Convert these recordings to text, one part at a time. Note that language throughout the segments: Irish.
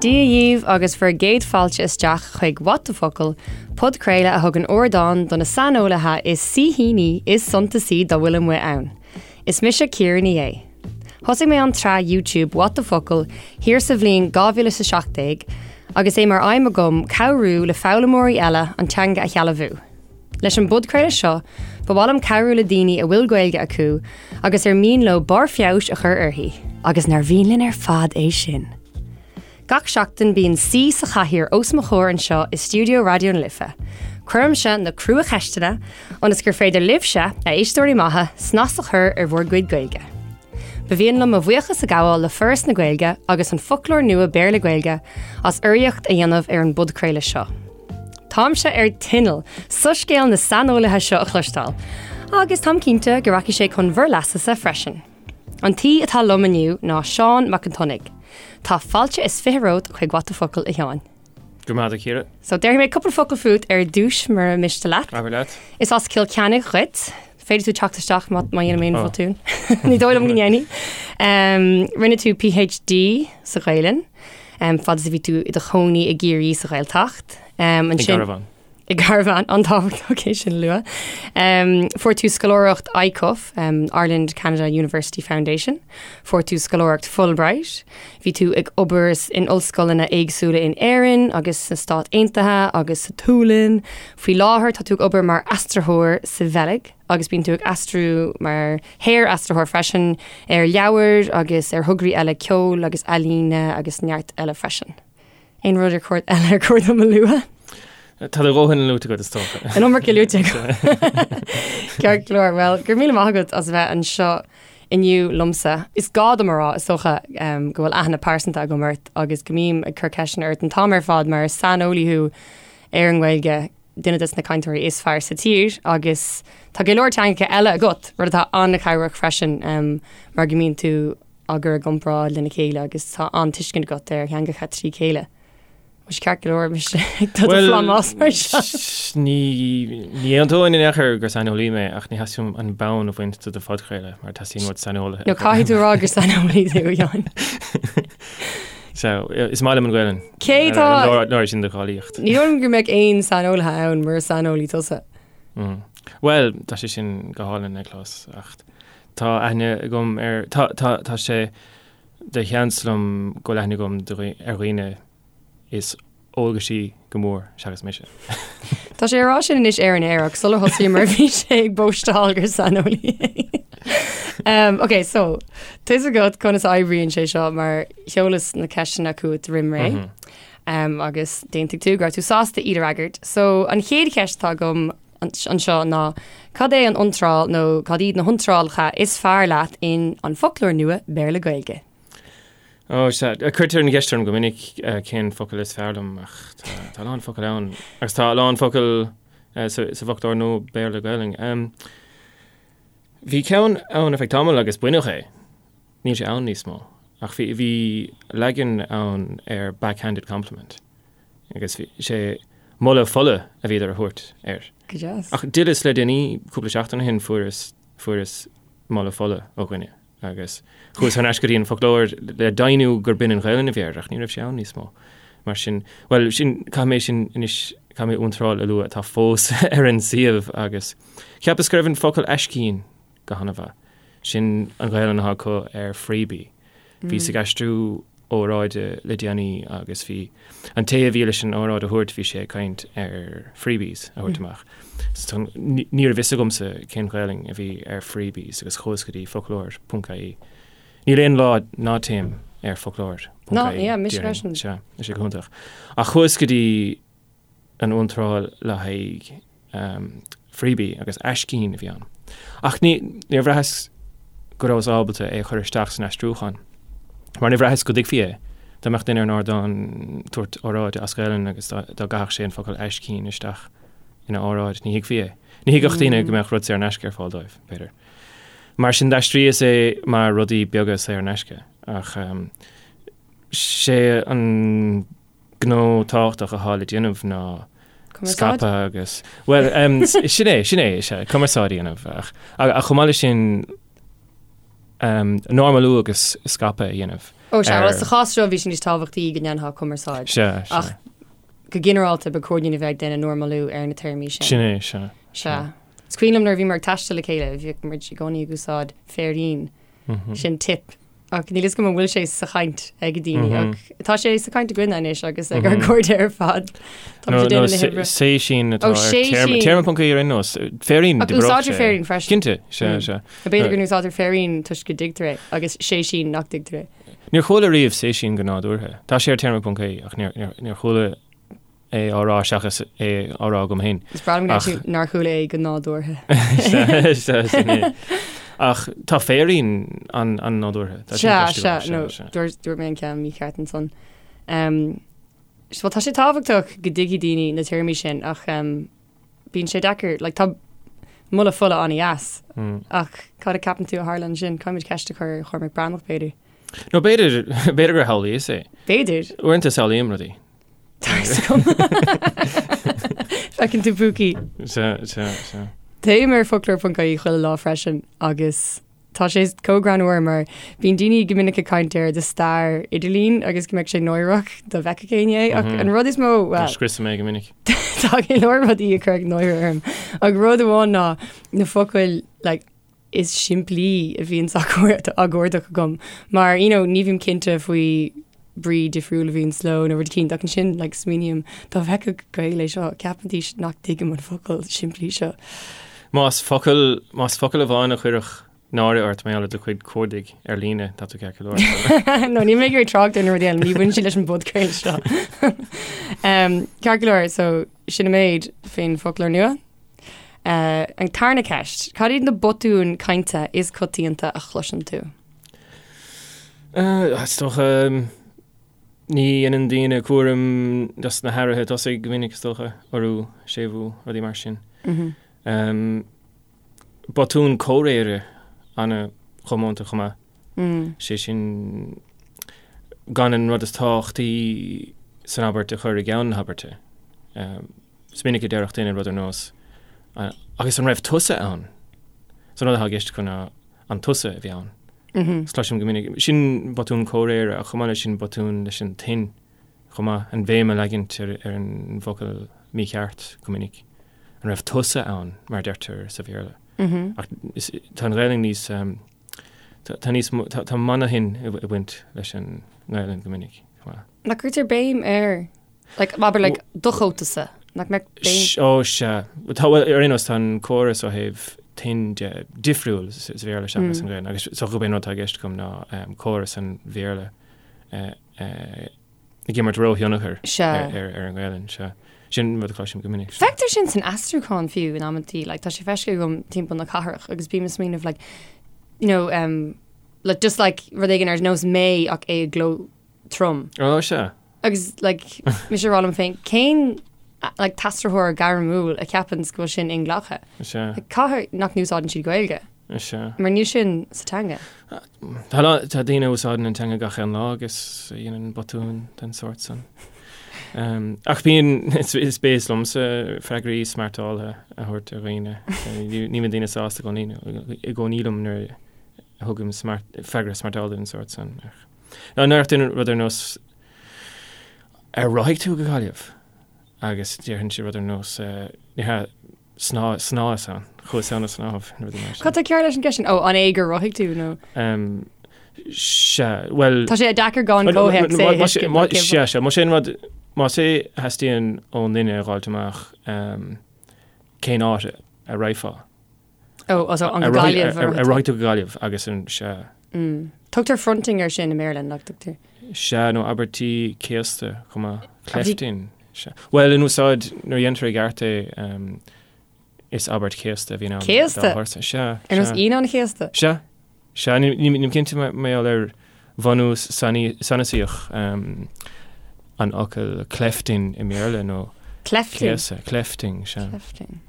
Dia dhíbh agus bhur gcéad fáilte isteach chuig What the Focal, podchraoladh a thugann ardán do na saineolaithe is saoithíní is suntasaí dá bhfuil amuigh ann. Is mise Ciara Ní É. Thosaigh mé an tsraith YouTube What the Focal thiar sa bhliain 2017 agus é mar aidhm agam cabhrú le foghlaimeoirí eile an teanga a shealbhú. Leis an bpodchraoladh seo, ba mhaith liom cabhrú le daoine a bhfuil Gaeilge acu agus ar mian leo barr feabhais a chur uirthi. Agus nár mhian linn ar fad é sin? Gach seachtain bíonn saoi sa chathaoir os mo chomhair anseo i stiúideo Raidió na Life. Cuirimse na crua-cheisteanna ionas gur féidir libhse, a éisteoirí maithe, snas a chur ar bhur gcuid Gaeilge. Ba mhian liom mo bhuíochas a ghabháil le Foras na Gaeilge agus an Foclóir Nua Béarla-Gaeilge as urraíocht a dhéanamh ar an bpodchraoladh seo. Táimse ar tinneall soiscéal na saineolaithe seo a chloisteáil, agus táim cinnte go rachaidh sé chun bhur leasa-sa freisin. An t-aoi atá liom inniu ná Seán Mac an tSionnaigh. Tá fáilte is 20 romhat chuig What the Focal, a Sheáin. Go raibh maith agat, a Chiara. So, déarfaidh mé cúpla focal fút ar dtús, mura miste leat. Abair leat. Is as Cill Chainnigh dhuit. Féadfaidh tú teacht isteach má má dhéanaim aon bhotún. Ní dóigh liom go ndéanfaidh. Um, rinne tú PhD sa Ghaelainn, um, fad is a bhí tú i do chónaí i gCiarraí sa Ghaeltacht. Um, ansin, I gcarbhán. I gcarbhán, an-tábhachtach é sin a lua. Um, fuair tú scoláireacht ICUF, um, Ireland Canada University Foundation. Fuair tú scoláireacht Fulbright. Bhí tú ag obair in ollscoileanna éagsúla in Éirinn agus sna Stáit Aontaithe agus sa tSualainn. Faoi láthair tá tú ag obair mar aistritheoir sa Bheilg agus bíonn tú ag aistriú mar shaor-aistritheoir freisin ar leabhair agus ar thograí eile ceoil agus ealaíne agus neart eile freisin. Aon rud ar chóir eile ar chóir dom a lua? Tá do dhóthain luaite agat is dócha. An iomarca luaite agam. Ceart go leor. Bhuel, go raibh míle maith agat as a bheith anseo inniu liomsa. Is gá dom a rá, is dócha, go bhfuil aithne pearsanta agam ort agus go mbím ag cur ceisteanna ort an t-am ar fad mar is saineolaí thú ar an nGaeilge, duine des na cainteoirí is fearr sa tír agus tá go leor teangacha eile agat, rud atá an-chabhrach freisin mar go mbíonn tú á gcur i gcomparáid lena chéile agus tá an-tuiscint agat ar theangacha trí chéile. Bhfuil sé ceart go leor mise ag dul do phlámás mar seo? Ní ní aontóinn in aon chor gur saineolaí mé ach ní theastaíonn uaim an bonn a bhaint de do phodchraoladh mar teastaíonn uait saineolaithe. No caithfidh tú a rá gur saineolaí tú, a Sheáin. So, is maith liom an Ghaelainn. Cé tá... Nuair sin do cháilíocht. Ní dóigh liom go mbeadh aon saineolaithe ann mura saineolaí tusa. Bhuel, tá sé sin go hálainn le clos ach Tá aithne agam ar, tá, tá, tá sé de sheans liom go bhfuil aithne agam ar dhaoine is eolgaisí go mór seachas mise. Tá sé ag rá sin anois ar an aer ach sular thosaíomar bhí sé ag bóisteáil gur saineolaí é. Um, ok, so, tá a fhios agat conas a oibríonn sé seo mar sheolas na ceisteanna chugat roimh ré. Mm -hmm. um, agus d'aontaigh tú go raibh tú sásta iad a fhreagairt. So, an chéad cheist atá agam anseo ná cad é an iontráil nó cad iad na hiontrálacha is fearr leat in An Foclóir Nua Béarla-Gaeilge? Ó, sea. Cuirtear an cheist orm go minic cén focal is fearr liom ach tá a lán focal ann agus tá a lán focal sa bhFoclóir Nua Béarla-Gaeilge. Bhí ceann ann ar feadh tamaill agus baineadh é. Níl sé ann níos mó. Ach bhí leagan ann ar backhanded compliment. Agus bhí sé moladh fola a bhíodar a thabhairt air. Go deas. Ach d'fhilleas le déanaí, cúpla seachtain ó shin, fuaireas, fuaireas moladh fola ó dhuine agus chuas thar n-ais go dtí an foclóir le deimhniú gur b'in an Ghaelainn a bhí air ach ní raibh sé ann níos mó. Mar sin, bhuel, sin, caithfidh mé sin anois, caithfidh mé iontráil a lua atá fós ar an suíomh agus cheapas go raibh an focal aiscín go han-mhaith. Sin an Ghaelainn atá acu ar freebie. Bhíos ag aistriú óráide le déanaí agus bhí an té a bhí leis an óráid a thabhairt, bhí sé ag caint ar freebies a thabhairt amach. So ní raibh fhios agamsa cén Ghaelainn a bhí ar freebies agus chuas go dtí foclóir ponc ie. Níl aon lá ná téim ar foclóir ponc ie. Ná, yeah, mise freisin. Sea, tá sé go hiontach. Ach chuas go dtí an iontráil le haghaidh freebie agus aiscín a bhí ann. Ach ní, níor bhraitheas go rabhas ábalta é a chur isteach san aistriúchán, mar níor bhraitheas go dtuigfí é. Dá mbeadh duine ar an ardán ag tabhairt óráide as Gaelainn agus dá gcaithfeadh sé an focal aiscín isteach ina óráid, ní thuigfí é. Ní thuigfeadh daoine go mbeadh rud saor in aisce ar fáil dóibh, b'fhéidir. Mar sin d'aistríos é mar rudaí beaga saor in aisce. Ach sé an gnó tábhachtach atá le déanamh ná Cumarsáid? scaipeadh agus, bhuel, em, sin é, sin é, is ea, cumarsáid a dhéanamh ach, ach chomh maith leis sin, em, normalú agus scaipeadh a dhéanamh. Ó sea, bhuel sa chás seo bhí sé níos tábhachtaí go ndéanfá cumarsáid. Sea, sea. Ach go ginearálta ba chóir dúinn a bheith ag déanamh normalú ar na téarmaí sin. Sin é, sea. Sea. Is cuimhin liom nuair a bhíomar ag taisteal le chéile, bhíodh muid i gcónaí ag úsáid féirín. Sin tip. Ach níl fhios agam an bhfuil sé sa chaint ag daoine ach tá sé sa chaint againne anois agus ag ár gcairde ar fad. Tá muid ag déanamh na hoibre. Séisín atá Ó, ar séisín. téarma ponc ie ar aon nós. Féirín, Ach úsáidtear féirín freisin. Cinnte, sea, sea. B'fhéidir go n-úsáidtear féirín toisc go dtuigtear é agus séisín nach dtuigtear é. Níor chuala riamh séisín go nádúrtha. Tá sé ar téarma ponc ie ach níor chuala é á rá seachas é á rá agam féin. Is breá liom go ndeir tú nár chuala é go nádúrtha. Sea, sea, sin é. Ach tá féirín an-nádúrtha. Tá sin Sea, cloiste sea, agam, nó sea, sea. dúirt dúirt mé an ceann mícheart ansan. Um, Bhuel, tá sé tábhachtach go dtuigfidh daoine na téarmaí sin ach um, bíonn sé deacair, like, tá moladh fola an-dheas ach cad a ceapann tú a tharla ansin? Caithfimid ceist a chur ar Chormac Breathnach, b'fhéidir. Nó b'fhéidir, b'fhéidir gur shamhlaíos é. B'fhéidir. Uaireanta samhlaím rudaí. Tá fhios agam. Feiceann tú púcaí. Sea, sea, sea. Téim ar foclóir.ie chuile lá freisin agus tá sé chomh greannmhar mar bíonn daoine go minic ag caint ar do stair idirlín agus go mbeadh sé náireach dá bhfeicfeadh éinne é ach an rud is mó, bhuel, Scriosaim é go minic. Tá go leor rudaí a chuirfeadh náire orm ach rud amháin ná na focail like, is simplí a bhíonns á gcuardach agam mar you know ní bhím cinnte faoi brí difriúil a bhíonns leo nó rud eicínt ach ansin like smaoiním dá bhfeicfeadh Gael é seo cheapfaidís nach dtuigim an focal simplí seo. Más focal, más focal amháin a chuirfeadh náire ort mar gheall ar do chuid cuardaigh ar líne, tá tú ceart go leor. No, níl mé ag iarraidh trácht ar na rudaí eile, ní bhaineann siad leis an bpodchraoladh seo. Um, ceart go leor, so sin an méid faoin bhfoclóir nua. An tarna ceist, cad iad na botúin cainte is coitianta a chloiseann tú? Is dócha, ní dhéanann daoine cúram dos na hathruithe tosaigh go minic, is dócha, urú, séimhiú, rudaí mar sin. Botún comhréire an-chomónta chomh maith. Sé sin, gan an rud is tábhachtaí san abairt a chur i gceann na habairte. Is minic a déarfadh duine rud ar nós, 'Agus an raibh tusa ann? So an rud atá i gceist acu ná, 'An tusa a bhí ann? Is cloisim go minic, sin botún comhréire ach chomh maith leis sin botún leis an tuin chomh maith, an bhéim a leagaint ar an bhfocal mícheart go minic. An raibh tusa ann? mar a deirtear sa Bhéarla. Ach tá an Ghaelainn níos, tá níos, tá manathinn ag baint leis an nGaelainn go minic chomh maith. Nach gcuirtear béim ar Like, abair, like, do chótasa, nach mbeadh béim. Ó, sea. Tá, bhuel, ar aon nós, tá an córas ó thaobh tuin de difriúil sa Bhéarla seachas an Ghaelainn, agus is dócha gurb é an rud atá i gceist agam ná córas an Bhéarla ag imirt róthionchar ar an nGaelainn, sea. Sin rud a chloisim go minic. Feictear sin san aistriúchán fiú in amantaí, like, tá sé feicthe agam timpeall na cathrach agus bím ag smaoineamh, like, you know, um, like, just like rud éigin ar nós mé ach é i gcló trom. Ó, sea. Agus like, mise ag rá liom féin, cén like, t-aistritheoir gairmiúil a cheapanns go bhfuil sin inghlactha? Sea. Like, caithfidh nach n-úsáideann siad Gaeilge? Sea. Mar níl sin sa teanga. Tá, tá daoine a úsáideann an teanga gach aon lá agus a dhéanann botúin den sórt san. Um, ach bíonn, is, is béas liomsa freagraí smeartáltha a thabhairt ar dhaoine. Ní ní bhíonn daoine sásta i gcónaí i gcónaí liom nuair a thugaim smart, freagra smeartáltha den sórt san. Ach Nó an ndéarfadh duine rud ar nós, Ar rothaigh tú go Gaillimh? Agus déarfainnse rud ar nós, Ní hea, sná, shnámhas ann, chuas ann ag snámh, nó rudaí mar sin. Cad tá cearr leis an gceist sin? Ó, an é gur rothaigh tú nó? Sea, bhuel. Tá sé deacair gan comhthéacs é a thuiscint. Sea, sea, más é an rud, más é a theastaíonn ón duine a dh'fháilt amach cén áit a raghfá. Ó, so an Gaillimh. Ar rothaigh tú go Gaillimh agus an sea. Tugtar fronting air sin i mBéarla, nach dtugtar? Sea, nó abairtí céasta chomh maith. Clefting. Sea. Bhuel, in úsáid, nuair a dhéantar i gceart é, is abairt chéasta a bhíonn ann. Céasta? Sea. Ar nós Aoine an Chéasta? Sea. Sea, nílim cinnte mar gheall ar bhunús sanasaíoch an fhocail clefting i mBéarla nó Clefting? céasadh, clefting, sea. Clefting.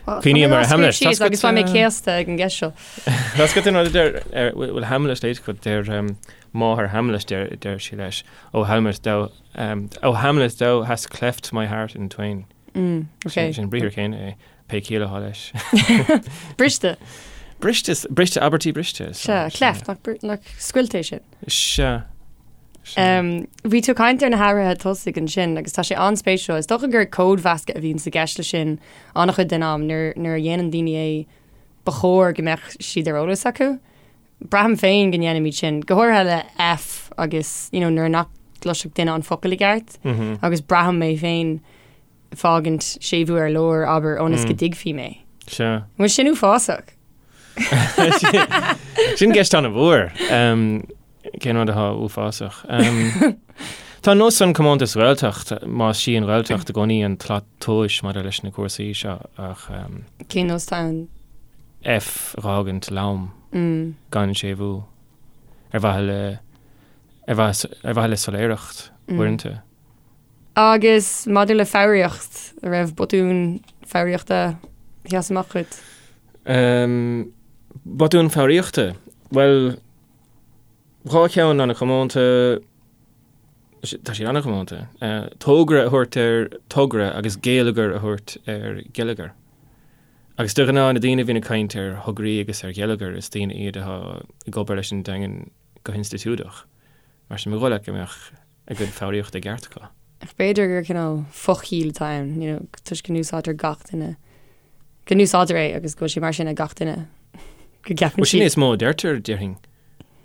Cuimhním ar Hamlet. Síos agus beidh mé céasta ag an gceist seo. Tá a fhios agat an rud a deir, bhfuil Hamlet léite agat, deir máthair Hamlet, deir sí leis, O Hamlet, thou, O Hamlet, thou hast cleft my heart in twain. Mm, okay. Sin an briathar céanna é, pé ciall atá leis. Briste. Briste, briste, abairtí briste. Sea, cleft, nach, nach scoilt é sin. Sea. Bhí tú ag caint ar na hathruithe tosaigh ansin agus tá sé an-spéisiúil. Is dócha gur códmheascadh a bhíonn i gceist leis sin an-chuid den am nuair, nuair a dhéanann daoine é ba chóir go mbeadh siad ar eolas acu. Braithim féin go ndéanaimid sin, go háirithe le F agus you know, nuair nach gcloisfeadh duine an focal i gceart mm -hmm. agus braithim mé féin fágaint séimhiú ar lár, abair, ionas go dtuigfí mé. Sea. Bhfuil sin uafásach? Sin ceist an-mhór. Cén rud atá uafásach? Tá an nós san comónta sa Ghaeltacht, más sí an Ghaeltacht i gcónaí an tslat tomhais maidir leis na cúrsaí seo ach. Cén nós atá ann? F a dh'fhágaint lom, gan séimhiú, ar mhaithe le, ar mhaithe le soiléireacht uaireanta. Agus maidir le foghraíocht, an raibh botún foghraíochta a sheas amach dhuit? Botún foghraíochta? Bhuel, 2 cheann an-chomónta, tá siad an-chomónta, tógra a thabhairt ar togra agus géilleagar a thabhairt ar geilleagar. Agus de ghnáth na daoine a bhíonn ag caint ar thograí agus ar gheilleagar, is daoine iad atá ag obair leis an dteangain go hinstitiúideach. Mar sin, ba dhóigh leat go mbeadh a gcuid foghraíochta i gceart acu. Ach b'fhéidir gur cineál fochiall atá ann, you know, toisc go n-úsáidtear gach duine, go n-úsáidtear é agus go bhfuil sé mar sin ag gach duine, go gceapann siad. Sin é is mó a deirtear, déarfainn,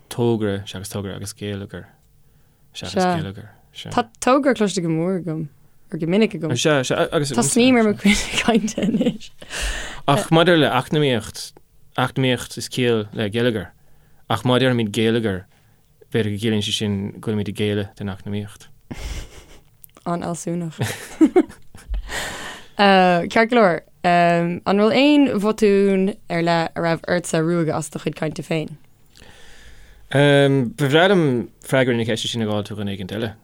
tógra seachas togra agus géilleagar seachas geilleagar. Sea. Tá togra cloiste go mór agam, or go minic agam. Sea, sea, agus. Tá snaidhm ar mo chuid cainte anois. Ach maidir le eacnamaíocht, eacnamaíocht is ciall le geilleagar, ach má deirimid géilleagar, B'fhéidir go gciallaíonn sé sin go bhfuilimid ag géilleadh don eacnamaíocht. An-fhealsúnach. Ceart go leor, an bhfuil aon bhotún ar leith a raibh ortsa ruaigeadh as do chuid cainte féin? Ba bhreá liom freagra na ceiste sin a dh'fháilt ó dhuine éigint eile,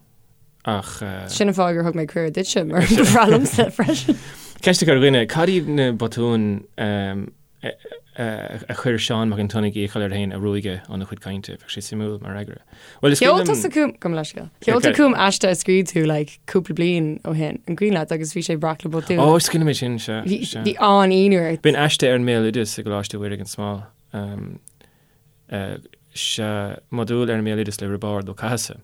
ach. Sin an fáth gur thug mé cuireadh duitse, mar ba bhreá liomsa freisin. Ceist a chur ar dhuine, cad iad na botúin a chuir Seán Mac an tSionnaigh iachall air féin a ruaigeadh óna chuid cainte. Bheadh sé suimiúil mar fhreagra. Bhuel, is cuimhin liom. Sheol tusa chugam, gabh mo leithscéal. Sheol tú chugam aiste a scríobh tú like cúpla bliain ó shin, an cuimhin leat agus bhí sé breac le botúin. Ó, is cuimhin liom é sin, sea. Bhí, sea. bhí an-ionadh ort. B'in aiste ar an mbéaloideas i gColáiste Mhuire gan Smál. Sea, modúl ar an mbéaloideas le Roibeárd Ó Cathasaigh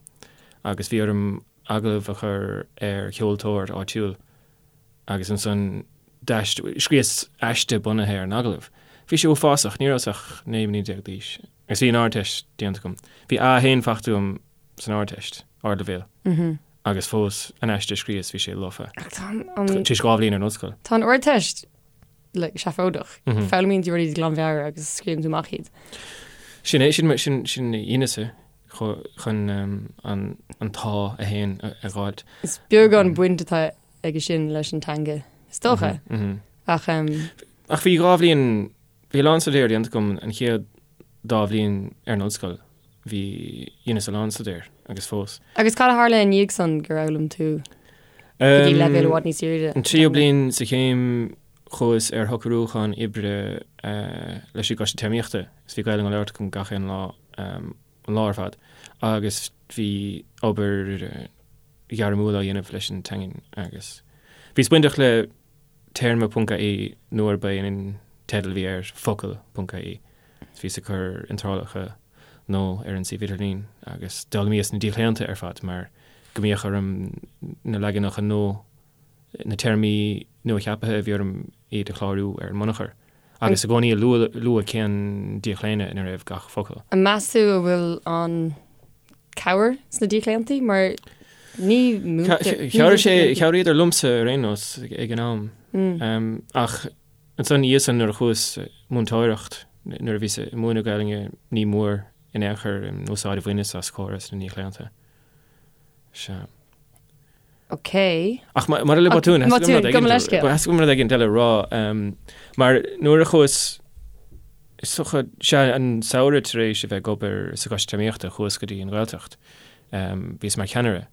agus bhí orm agallamh a chur ar cheoltóir áitiúil. agus ansan scríos aiste bunaithe ar an agallamh. Bhí sé uafásach, ní rabhas ach 19 mbliana d'aois agus bhí an Ardteist déanta agam. Bhí A1 faighte agam san Ardteist, ardleibhéal, agus fós an aiste a scríos bhí sé lofa. Tar éis 2 bhliain ar an ollscoil. Tá an Ardteist like, seafóideach. Foghlaimíonn tú rudaí de ghlanmheabhair agus scríobhann tú amach iad. Sin é, sin, sin, sin a dheineas-sa chun an t-A1 a dh'fháilt. Is beag an bhaint atá aige sin leis an teanga, is dócha. Ach. Ach bhí 2 bhliain, bhí a lán staidéir déanta agam an chéad dá bhliain ar an ollscoil. Bhí, dheineas a lán staidéir agus fós. Agus cad a tharla i ndiaidh san gur fhoghlaim tú go dtí leibhéal i bhfad níos airde? An tríú bliain sa chéim chuas ar shocrúchán oibre leis an gCoiste Téarmaíochta is bhí Gaelainn á labhairt agam gach aon lá, an lá ar fad agus bhí obair ghairmiúil á dhéanamh leis an teangain agus bhíos bainteach le téarma ponc ie nuair ba é an teideal a bhí air focal ponc ie. Bhíos ag cur iontrálacha nua ar an suíomh idirlín agus d'fhoghlaimíos na díochlaonta ar fad mar go mbíodh orm na leaganacha nua, na téarmaí nua-cheaptha a bhí orm iad a chlárú ar an mbunachar agus i gcónaí a lua cén díochlaonadh ina raibh gach focal. An meas tú a bhfuil an cabhair sna díochlaontaí mar ní múintear. Chabhraigh sé, chabhraíodar liomsa ar aon nós ag an am. Ach ansan ina dhiaidh san nuair a chuas múinteoireacht, nuair a bhíos ag múineadh Gaelainne ní mór in aon chor an úsáid a bhaineas as córas na ndíochlaonta. Sea. Ok. Ach maidir le botúin, theastaigh uaim rud éigin eile a rá. Mar nuair a chuas, is dócha, sea, an samhradh tar éis a bheith ag obair sa Choiste Téarmaíochta, chuas go dtí an Ghaeltacht. Bhíos mar cheannaire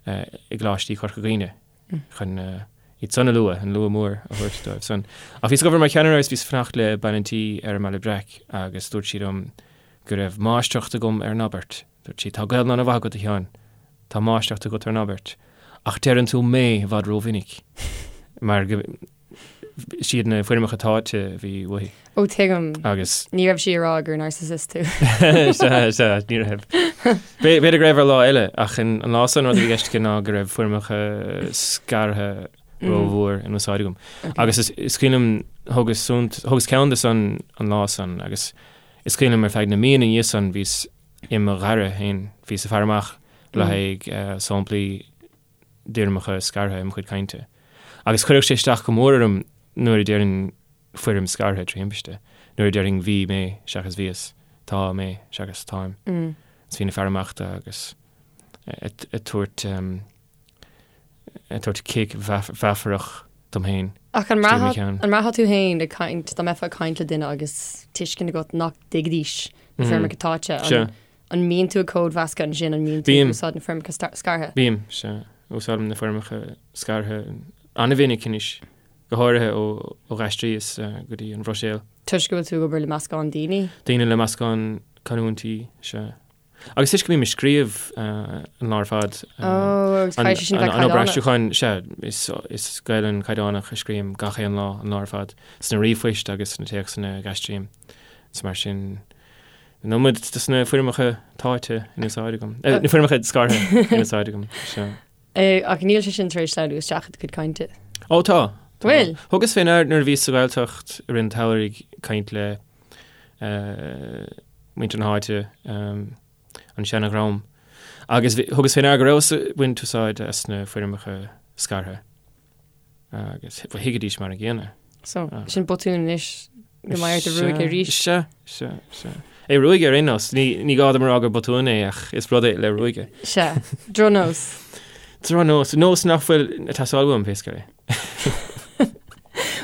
i gColáistí Chorca Dhuibhne chun iad san a lua, an lua mór a thabhairt dóibh san. Ach bhíos ag obair mar cheannaire agus bhíos ag fanacht le bean an tí ar an mBaile Breac agus dúirt sí liom go raibh máistreacht agam ar an abairt. Dúirt sí, Tá Gaelainn an-mhaith agat, a Sheáin. Tá máistreacht agat ar an abairt. Ach deireann tú mé i bhfad rómhinic. Mar go. Siad na foirmeacha táite a bhí uaithi. Ó tuigim. Agus. Ní raibh sí ag rá gur narcissist tú. Sea, sea, ní raibh. B'fhéidir go raibh ar lá eile, ach an lá san rud a bhí i gceist aici ná go raibh foirmeacha scartha rómhór in úsáid agam. Agus is cuimhin liom, thugas thugas ceann de san an lá san agus is cuimhin liom ar feadh na míonna ina dhiaidh san bhíos i mo ghaire féin, bhíos ag faire amach le haghaidh samplaí d'fhoirmeacha scartha i mo chuid cainte. Agus chuirfeadh sé isteach go mór orm nuair a déarfainn foirm scartha trí thimpiste, nuair a déarfainn bhí mé seachas bhíos, tá mé seachas táim. Is bhínn ag faire amach dó agus ag tabhairt ag tabhairt cic mheafarach dom féin. Ach an mbraithfeá tú féin ag caint, dá mbeifeá ag caint le duine agus tuiscint agat nach dtuigfidís na foirmeacha táite, an An mbíonn tú ag códmheascadh ansin, an mbíonn tú ag úsáid na foirmeacha scartha? Bím, sea. Úsáidim na foirmeacha scartha an-mhinic anois, go háirithe ó d'aistríos go dtí an Bhruiséil. Toisc go bhfuil tú ag obair le meascán daoine? Daoine le meascán canúintí, sea. Agus toisc go mbím ag scríobh an lá ar fad. Ó, agus caithfidh sé sin bheith caighdeánach. An obair aistriúcháin, sea, is Gaelainn caighdeánach a scríobhaim gach aon lá, an lá ar fad, sna ríomhphoist agus sna téacsanna a aistrím. Is mar sin. An iomad de na foirmeacha táite in úsáid agam. Na foirmeacha scartha in úsáid agam. Sea. Ach níl sé sin tar éis sleamhnú isteach i do chuid cainte. Ó tá. Bhfuil? Thugas fé ndear nuair a bhíos sa Ghaeltacht i rith an tsamhraidh ag caint le muintir na háite, an seana-dhream, agus thugas fé ndear go rabhas ag baint úsáid as na foirmeacha scartha. Agus thuigfidís mar an gcéanna. So, sin botún anois go mbeidh ort a ruaigeadh arís. Sea, sea, sea. É ruaigeadh ar aon nós. Ní, ní gá dom a rá gur botún é ach is rud é le ruaigeadh. Sea. Drochnós. Drochnós. Nós nach bhfuil ag teastáil uaim, pé scéal é.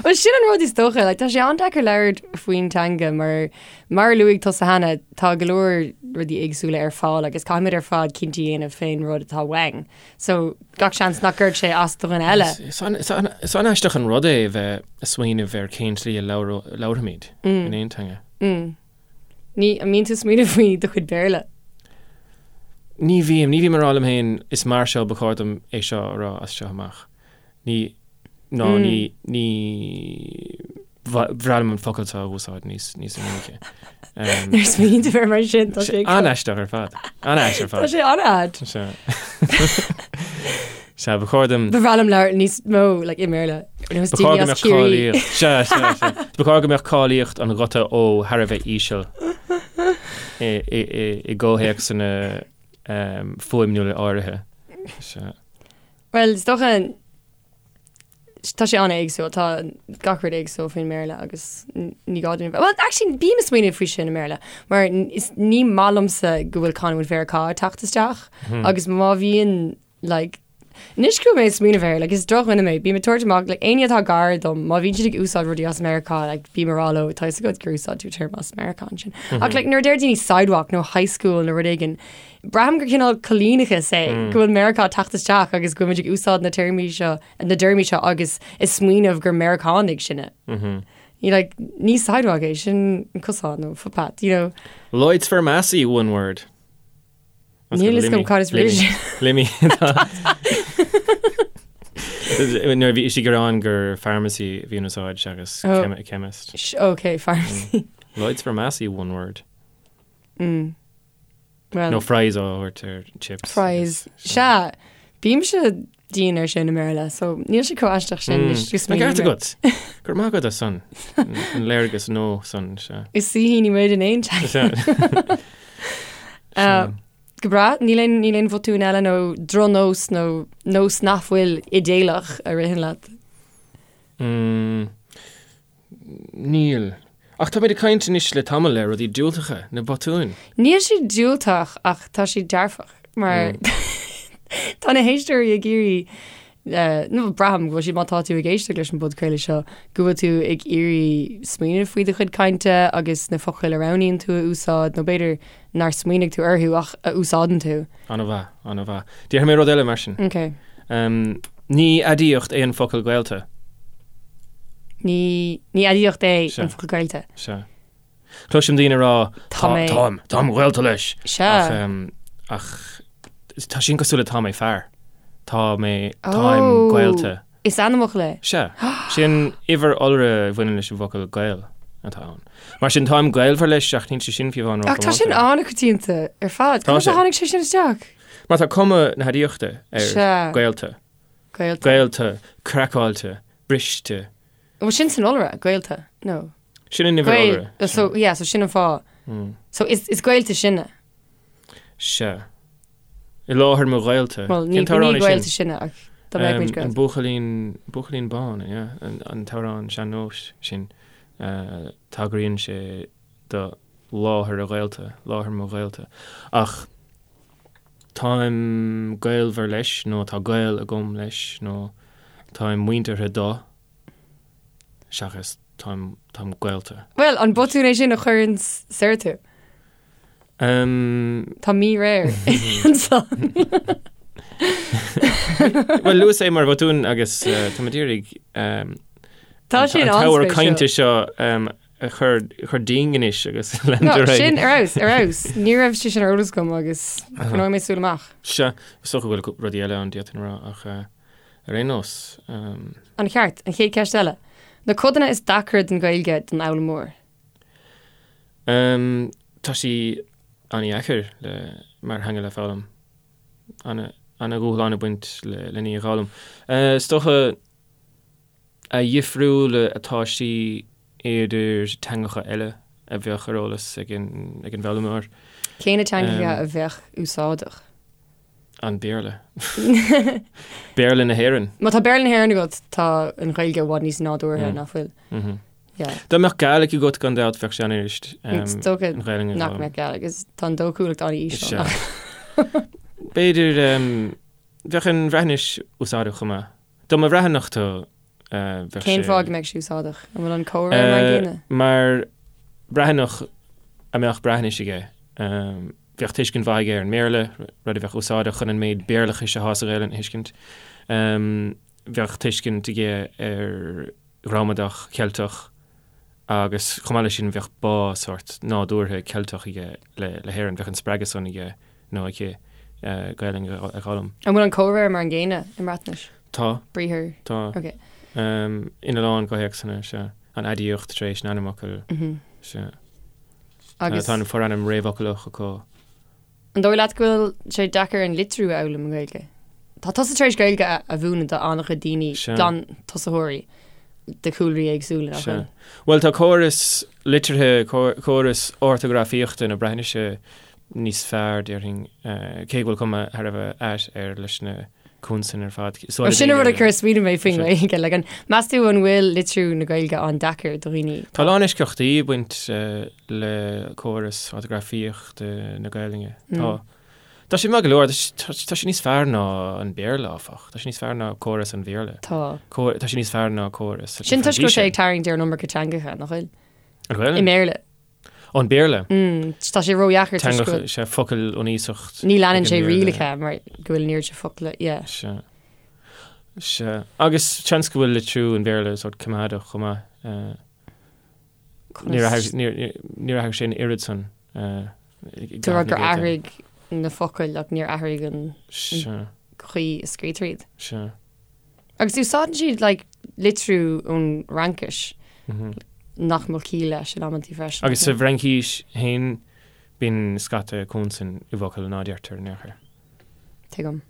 Well, sin an rud is dócha, like, tá sé an-deacair labhairt faoin teanga mar, mar a luaigh tusa cheana, tá go leor rudaí éagsúla ar fáil agus caithfimid ar fad cinntí a dhéanamh fén rud atá uainn. So, gach seans nach gcuirfeadh sé as do dhuine eile. Is an-aisteach an rud é a bheith ag smaoineamh ar cén tslí a labhraímid in aon teanga. Ní, an mbíonn tú ag smaoineamh faoi do chuid Béarla? Ní bhím, ní bhím ag rá liom féin is mar seo ba chóir dom é seo a rá as seo amach. Ní, ná ní, ní. Ba bhreá liom an focal seo a úsáid níos níos minice. Nuair a smaoiníonn tú air mar sin, tá sé an-aisteach ar fad. An-aisteach ar fad. Tá sé an-ait. Sea. Sea, ba chóir dom... Ba bhreá liom labhairt níos mó like, i mBéarla. Ba chóir go mbeadh cáilíocht. Sea, sea, sea. Ba chóir go mbeadh cáilíocht an ghuta ó thar a bheith íseal i, i, i, i gcomhthéacsanna um, fuaimniúla áirithe. Sea. Well, is dócha Tá sé an-éagsúil, tá gach rud éagsúil faoin mBéarla agus ní gá dúinn a bheith, bhuel, actually bím ag smaoineamh faoi sin i mBéarla, mar is ní maith liomsa go bhfuil canúint Mheiriceá ag teacht isteach agus má bhíonn like, anois go bhfuil mé ag smaoineamh air, like, is drochdhuine mé, bím ag tabhairt amach, like, éinne atá gar dom, má bhíonn siad ag úsáid rudaí as Meiriceá, like, bím ag rá leo, tá fhios agat gur úsáid tú téarma as Meiriceá ansin. Ach like, nuair a deir daoine sidewalk nó high school nó rud éigin, Braithim gur cineál coilíneachas é go bhfuil Meiriceá ag teacht isteach agus go bhfuil muid ag úsáid na téarmaí seo, na dtéarmaí seo agus ag smaoineamh gur Meiriceánaigh sinne. You like, ní sidewalk é, sin an cosán nó footpath, you know. Lloyd's Pharmacy, one word. Níl fhios agam cad is brí sin. Limmy. Nuair a bhí sí ag gearán gur pharmacy a bhí in úsáid seachas oh. chemist. Ok, pharmacy. Lloyd's Pharmacy, one word. Mm. Well, Nó fries á thabhairt ar chips. Fries. Sea, bímse dian ar sin i mBéarla, so níl sé chomh aisteach sin. Mm. An ceart agat. Go raibh maith agat as san. An léargas nua san, sea. Is saoithíní muid in aon teanga. Uh, go breá, níl aon níl aon bhotún eile nó drochnós nó nós nach bhfuil idéalach a ritheann leat. Mm. Níl. Ach táimid ag caint anois le tamall ar rudaí diúltacha, na botúin. Níl siad diúltach ach tá siad dearfach mar tá na héisteoirí ag iarraidh, nó braithim go bhfuil siad, má tá tú ag éisteacht leis an bpodchraoladh seo, go bhfuil tú ag iarraidh smaoineamh faoi do chuid cainte agus na focail a roghnaíonn tú a úsáid nó b'fhéidir nár smaoinigh tú orthu ach a úsáideann tú. An-mhaith, an-mhaith. Déarfaidh mé rud eile mar sin. Ok. Ní aidiacht é an focal gaolta. Ní, ní aidiacht é an focal gaolta. Sea. Cloisim daoine ag rá, tá mé, táim, táim gaolta leis. Sea. Ach, ach tá sin cosúil le tá mé fear. Tá mé, táim oh. gaolta. Is ainmfhocal é. Sea. Sin uimhir iolra a bhaineann leis an bhfocal gaol atá ann. Mar sin táim gaolmhar leis ach níl sé sin fiú amháin Ach tá sin an-choitianta ar fad. Conas a tháinig sé sin isteach? Mar tá cuma na haidiachta ar Sea. gaolta. Gaolta. Gaolta, craiceáilte, briste. Bhuel sin san iolra, gaolta, no. Sin an uimhir iolra. So, yeah, so sin an fáth. So is, is gaolta sinne. Sea. I láthair mo ghaolta. Bhuel, ní, ní gaolta sinne ach dá mbeadh muid gaolta. An buachaillín, buachaillín bán, yeah, an, an t-amhrán sean-nóis sin, uh, tagraíonn sé do láthair a ghaolta, láthair mo ghaolta. Ach táim gaolmhar leis, nó tá gaol agam leis, nó táim muinteartha do, seachas táim, táim gaolta. Bhuel, an botún é sin a chuireann soir tú? Tá míréir ansan. Bhuel, luas é mar bhotún agus tá mé ag iarraidh Tá sé an t-ábhar cainte seo a chur chur dínn anois agus leanúint ar aghaidh. Sin ar fheabhas, ar fheabhas. Ní raibh sé sin ar eolas agam agus coinneoidh mé súil amach. Sea, is dócha go bhfuil rudaí eile ann d'fhéadfainn a rá ach ar aon nós. An-cheart. An chéad cheist eile. Na codanna is deacra den Ghaeilge don fhoghlaimeoir. Tá sí an-dheacair le, mar theanga le foghlaim. Ana, ana-dhúshlán ag baint le, len í a dh'fhoghlaim. Is dócha a dhifriúla atá sí idir teangacha eile a bheadh ar eolas ag an, ag an bhfoghlaimeoir. Cé na teangacha a bheadh úsáideach? An Béarla. Béarla na hÉireann. Má tá Béarla na hÉireann agat, tá an Ghaeilge i bhfad níos nádúrtha, nach bhfuil? Yeah. Dá mbeadh Gàidhlig agat gan dabht bheadh sé an-fhuirist. Is dócha nach mbeadh Gàidhlig, is tá an dóchúlacht an-íseal. B'fhéidir bheadh an Bhreatnais úsáideach chomh maith. Dá mba Bhreathnach tú bheadh sé. Cén fáth go mbeadh sé úsáideach? An bhfuil an comhréir mar an gcéanna? Mar Bhreathnach a mbeadh Breatnais aige, bheadh tuiscint mhaith aige ar an mBéarla, rud a bheadh úsáideach chun an méid Béarlachais atá sa Ghaelainn a thuiscint. Bheadh tuiscint aige ar ghramadach Cheilteach agus chomh maith leis sin bheadh bá sórt nádúrtha Ceilteach aige le hÉirinn, bheadh an spreagadh san aige nó aici Gaelainn a dh'fhoghlaim. An bhfuil an comhréir mar an gcéanna i mBreatnais? Tá. Briathar. Tá. Ok. Ina lán comhthéacsanna, sea. An aidiacht tar éis an ainmfhocail, sea. Agus. Tá an forainm réamhfhoclach acu. An dóigh leat go bhfuil sé deacair an litriú a fhoghlaim i nGaeilge? Tá tusa tar éis Gaeilge a mhúineadh do an-chuid daoine, glantosaitheoirí de chúlraí éagsúla, nach bhfuil? Bhuel, tá córas litrithe, córas ortagrafaíochta na Breatnaise níos fearr, déarfainn, cé go bhfuil cuma thar a bheith ait air leis na consain ar fad. Ó, sin an rud a chuir smaoineamh mé faoin nGaeilge. Like, an, meas tú an bhfuil litriú na Gaeilge an-deacair do dhaoine? Tá a lán eisceachtaí ag baint le córas ortagrafaíochta na Gaelainne. Tá. Tá sé maith go leor, tá sé níos fearr ná an Béarla, áfach. Tá sé níos fearr ná córas an Bhéarla. Tá. Tá sé níos fearr ná córas. Sin toisc go bhfuil sé ag tarraingt ar an iomarca teangacha, nach bhfuil? An Ghaelainn? I mBéarla. An Béarla. Tá sé ródheacair toisc go bhfuil. Sea, focail ón iasacht. Ní leanann sé rialacha mar go bhfuil an oiread sin focla, yeah. Sea. Sea. Agus seans go bhfuil litriú an Bhéarla sórt coimeádach chomh maith. Níor athraigh sé an oiread san. Tú ag rá gur athraigh na focail ach níor athraigh an chaoi a scrítear iad. Sea. Agus úsáideann siad like litriú ón Fhraincis nach mbeadh ciall leis in amantaí freisin. Agus sa bhFraincís féin bíonn scata consan i bhfocail ná deirtear in aon chor. Tuigim.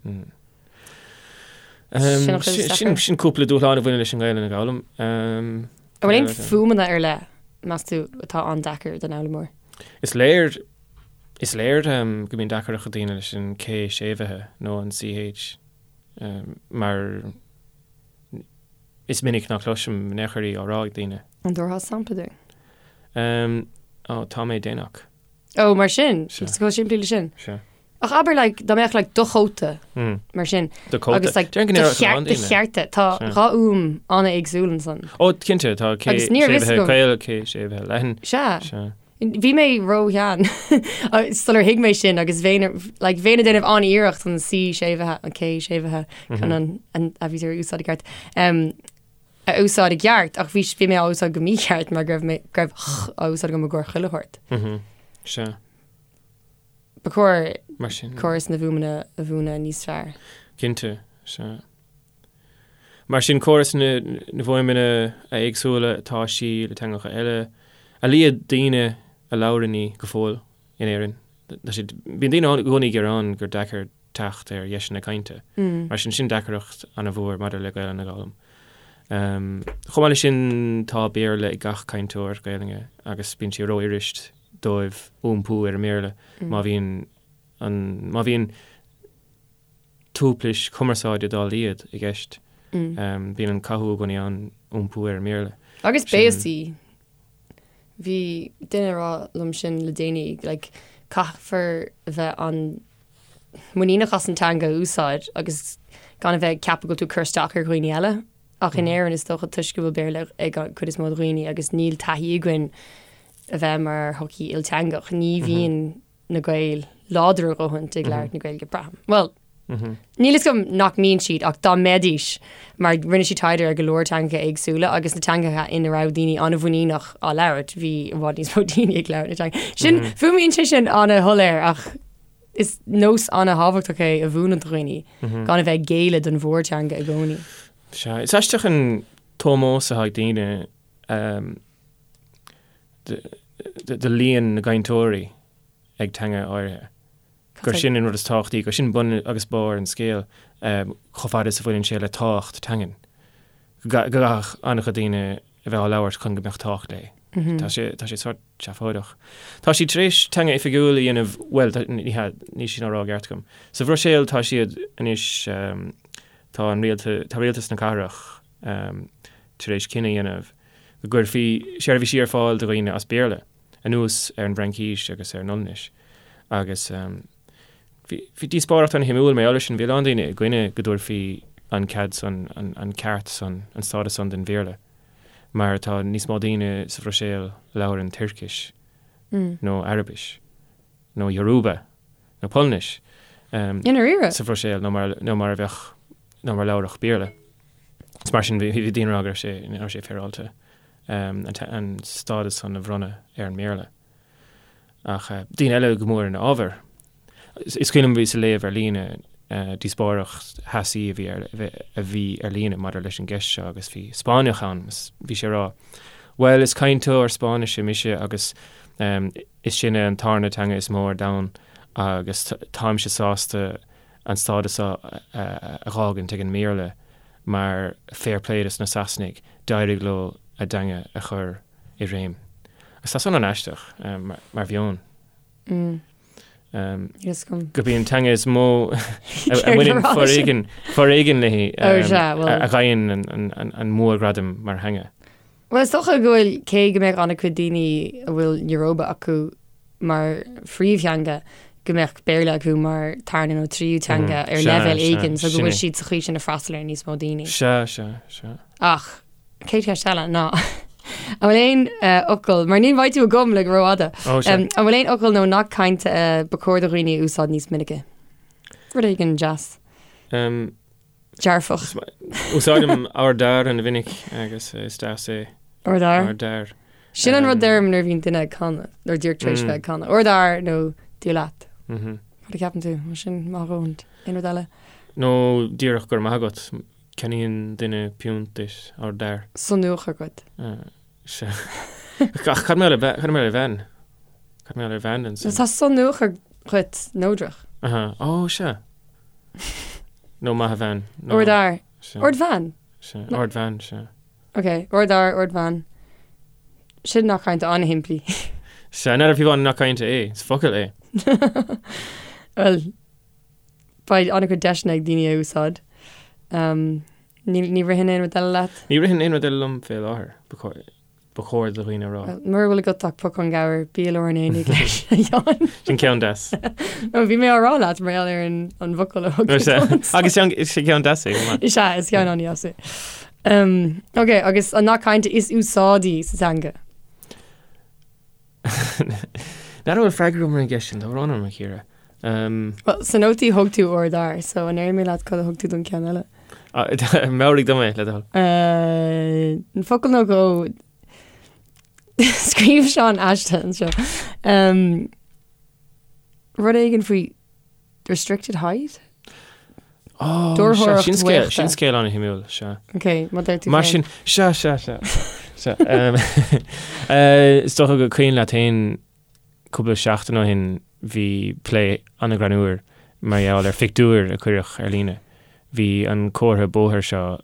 Sin sin cúpla dúshlán a bhaineann leis an nGaelainn a dh'fhoghlaim. An bhfuil aon fuaimeanna ar leith, meas tú, atá an-deacair don fhoghlaimeoir? Is léir is léir go mbíonn deacracht ag daoine leis an K séimhithe nó an CH. Mar is minic ná cloisim in aon chor í á rá ag daoine. An dtabharfá sampla dúinn? Ó, tá mé déanach. Ó, mar sin? Sea. Is chomh simplí le sin? Sea. Ach abair, like, dá mbeadh, like, do chóta, mar sin. Do chóta. Agus, like, do cheart, do chearta. Tá dhá fhuaim an-éagsúil ansan. Ó, cinnte, tá K séimhithe caol, K séimhithe leathan. Sea. Sea. Bhí mé ró-shean sular thuig mé sin agus bheinn like, bheinn ag déanamh an-iarracht an C séimhithe, an K séimhithe chun an, an aibítir a úsáid i gceart, um, a úsáid i gceart ach bhí, bhí mé á úsáid go mícheart mar go raibh mé, go raibh ch á úsáid agam i gcomhair chuile shórt. Mm -hmm. Sea. Ba chóir Mar sin. córas na bhfuaimeanna a mhúineadh níos fearr. Cinnte, sea. Mar sin, córas na bhfuaimeanna a éagsúla atá sí le teangacha eile, a laghad daoine a labhrann í go fóill in Éirinn. Tá siad, bíonn daoine i gcónaí ag gearán gur deacair teacht ar dheiseanna cainte. Mar sin, sin deacracht an-mhór maidir le Gaelainn a dh'fhoghlaim. Chomh maith leis sin, tá Béarla ag gach cainteoir Gaelainne agus bíonn sé rófhuirist dóibh iompú ar an mBéarla má bhíonn an, má bhíonn tuaiplis cumarsáide dá laghad i gceist. Bíonn an cathú i gcónaí ann iompú ar an mBéarla. Agus béasaí. Bhí duine ag rá liom sin le déanaí, like, caithfear a bheith an-mhuiníneach as an teanga a úsáid agus gan a bheith ag ceapadh go bhfuil tú ag cur isteach ar dhaoine eile. Ach in Éirinn is dócha toisc go bhfuil Béarla ag an chuid is mó de dhaoine agus níl taithí againn a bheith mar shochaí ilteangach, ní bhíonn na Gaeil láidir a dhóthain ag labhairt na Gaeilge, braithim. Bhuel, níl fhios agam nach mbíonn siad ach dá mbeidís, mar rinne siad taighde ar go leor teangacha éagsúla agus na teangacha ina raibh daoine an-mhuiníneach á labhairt, bhí i bhfad níos mó daoine ag labhairt na teanga. Sin, fuaimíonn sé sin an-shoiléir ach is nós an-thábhachtach é a mhúineadh do dhaoine, gan a bheith ag géilleadh don mhórteanga i gcónaí. Sea, is aisteach an t-ómós atá ag daoine do líon na gcainteoirí ag teanga áirithe. Gur sin an rud is tábhachtaí, gur sin bun agus barr an scéil chomh fada is a bhaineann sé le tábhacht teangan. Go gcaithfeadh an-chuid daoine a bheith á labhairt chun go mbeadh tábhacht léi. Tá sé, tá sé sórt seafóideach. Tá siad tar éis teanga oifigiúil a dhéanamh, bhuel, ní hea, níl sin á rá i gceart agam. Sa Bhruiséil tá siad anois, tá an rialtas, tá rialtas na cathrach tar éis cinneadh a dhéanamh go gcuirfí seirbhísí ar fáil do dhaoine as Béarla, anuas ar an bhFraincís agus ar an Ollainnis. Agus bhí díospóireacht an-shuimiúil mar gheall air sin, bhí a lán daoine i gcoinne go dtabharfaí an cead san, an ceart san, an stádas san don Bhéarla, mar tá níos mó daoine sa Bhruiséil a labhrann Tuircis nó Araibis nó Yoruba nó Polainnis sa Bhruiséil ná mar a bheadh, ná mar a labharfadh Béarla. Is mar sin bhí daoine ag rá go raibh sé, nach raibh sé féaráilte an stádas san a bhronnadh ar an mBéarla. Ach daoine eile go mór ina fhábhar. Is cuimhin liom bhíos ag léamh ar líne díospóireacht theasaí a bhí ar a bhí ar líne maidir leis an gceist seo agus bhí Spáinneach ann agus bhí sé ag rá Bhuel is cainteoir Spáinnise mise agus is sin an tarna teanga is mó ar domhan agus táimse sásta an stádas seo a dh'fhágaint ag an mBéarla mar fair play dos na Sasanaigh, d'éirigh leo a dteanga a chur i réim. Agus tá san an-aisteach mar mheon. Gurb í an teanga is mó a mbaineann foréigean, foréigean léi a gheibheann an mórghradam mar theanga. Bhuel, is dócha go bhfuil, cé go mbeadh an-chuid daoine a bhfuil Yoruba acu mar phríomhtheanga, go mbeadh Béarla acu mar tarna nó tríú teanga ar leibhéal éigin, so go bhfuil siad sa chaoi sin ag freastal ar níos mó daoine. Sea, sea, sea. Ach, chéad cheist eile ná, an bhfuil aon fhocal, mar ní bheidh tú agam le go rófhada, an bhfuil aon fhocal nó nath cainte ba chóir do dhaoine a úsáid níos minice? Rud éigin deas. Dearfach. Úsáidim ár d'fhear an-mhinic agus is deas é. Ár d'fhear? Ár d'fhear. Sin an rud a deirim nuair a bhíonn duine ag canadh, nuair díreach tar éis bheith ag canadh. Ár d'fhear nó Dia leat. Cad a cheapann tú? Mar sin maith dhóthain. Aon rud eile? Nó díreach go raibh maith agat. Ceannaíonn duine piúnt duit, ár d'fhear. San uachar agat. Sea. Ach cad mar gheall ar bhean? Cad mar gheall ar bhean ansin? Tá san uachar dhuit neodrach. Aha. Ó, sea. Nó maith a bhean. Ár d'fhear. Ardbhean? Sea. Ardbhean, sea. Ok, ardfhear, ardbhean. Sin nath cainte an-shimplí. Sea, n'fheadar fiú an nath cainte é, is focal é. Bhuel, beidh an-chuid deiseanna ag daoine a úsáid. Ní ritheann aon rud eile leat? Ní ritheann aon rud eile liom fé láthair, ba chóir do dhaoine a rá. Mura bhfuil agat ach pocán gabhair, bí i lár an aonaigh leis, a Sheáin. Sin ceann deas. No, bhí mé á rá leat mar gheall ar an bhfocal a thug tú domsa. Agus is ceann deas é, chomh maith. Is ea, is ceann an-deas é. Ok, agus an nath cainte is úsáidí sa teanga? N'fheadar an bhfuil freagra agam ar an gceist sin, tá brón orm, a Chiara. Bhuel, sna nótaí thug tú ár d'fhear, so an ndéarfaidh mé leat cad a thug tú don ceann eile? Meabhraigh dom é, le do thoil. An focal nó dhó Scríobh Seán aiste anseo. Rud éigin faoi restricted height? Ó, Dúrthóireacht sea, sin scéal, bhaochta. sin scéal an-shuimiúil, sea. Ok, má deir tú Mar féin. sin, sea, sea, sea, sea. Em, eh, Is dócha gur cuimhin leat féin cúpla seachtain ó shin bhí plé an-ghreannmhar mar gheall ar phictiúr a cuireadh ar líne. Bhí an comhartha bóthair seo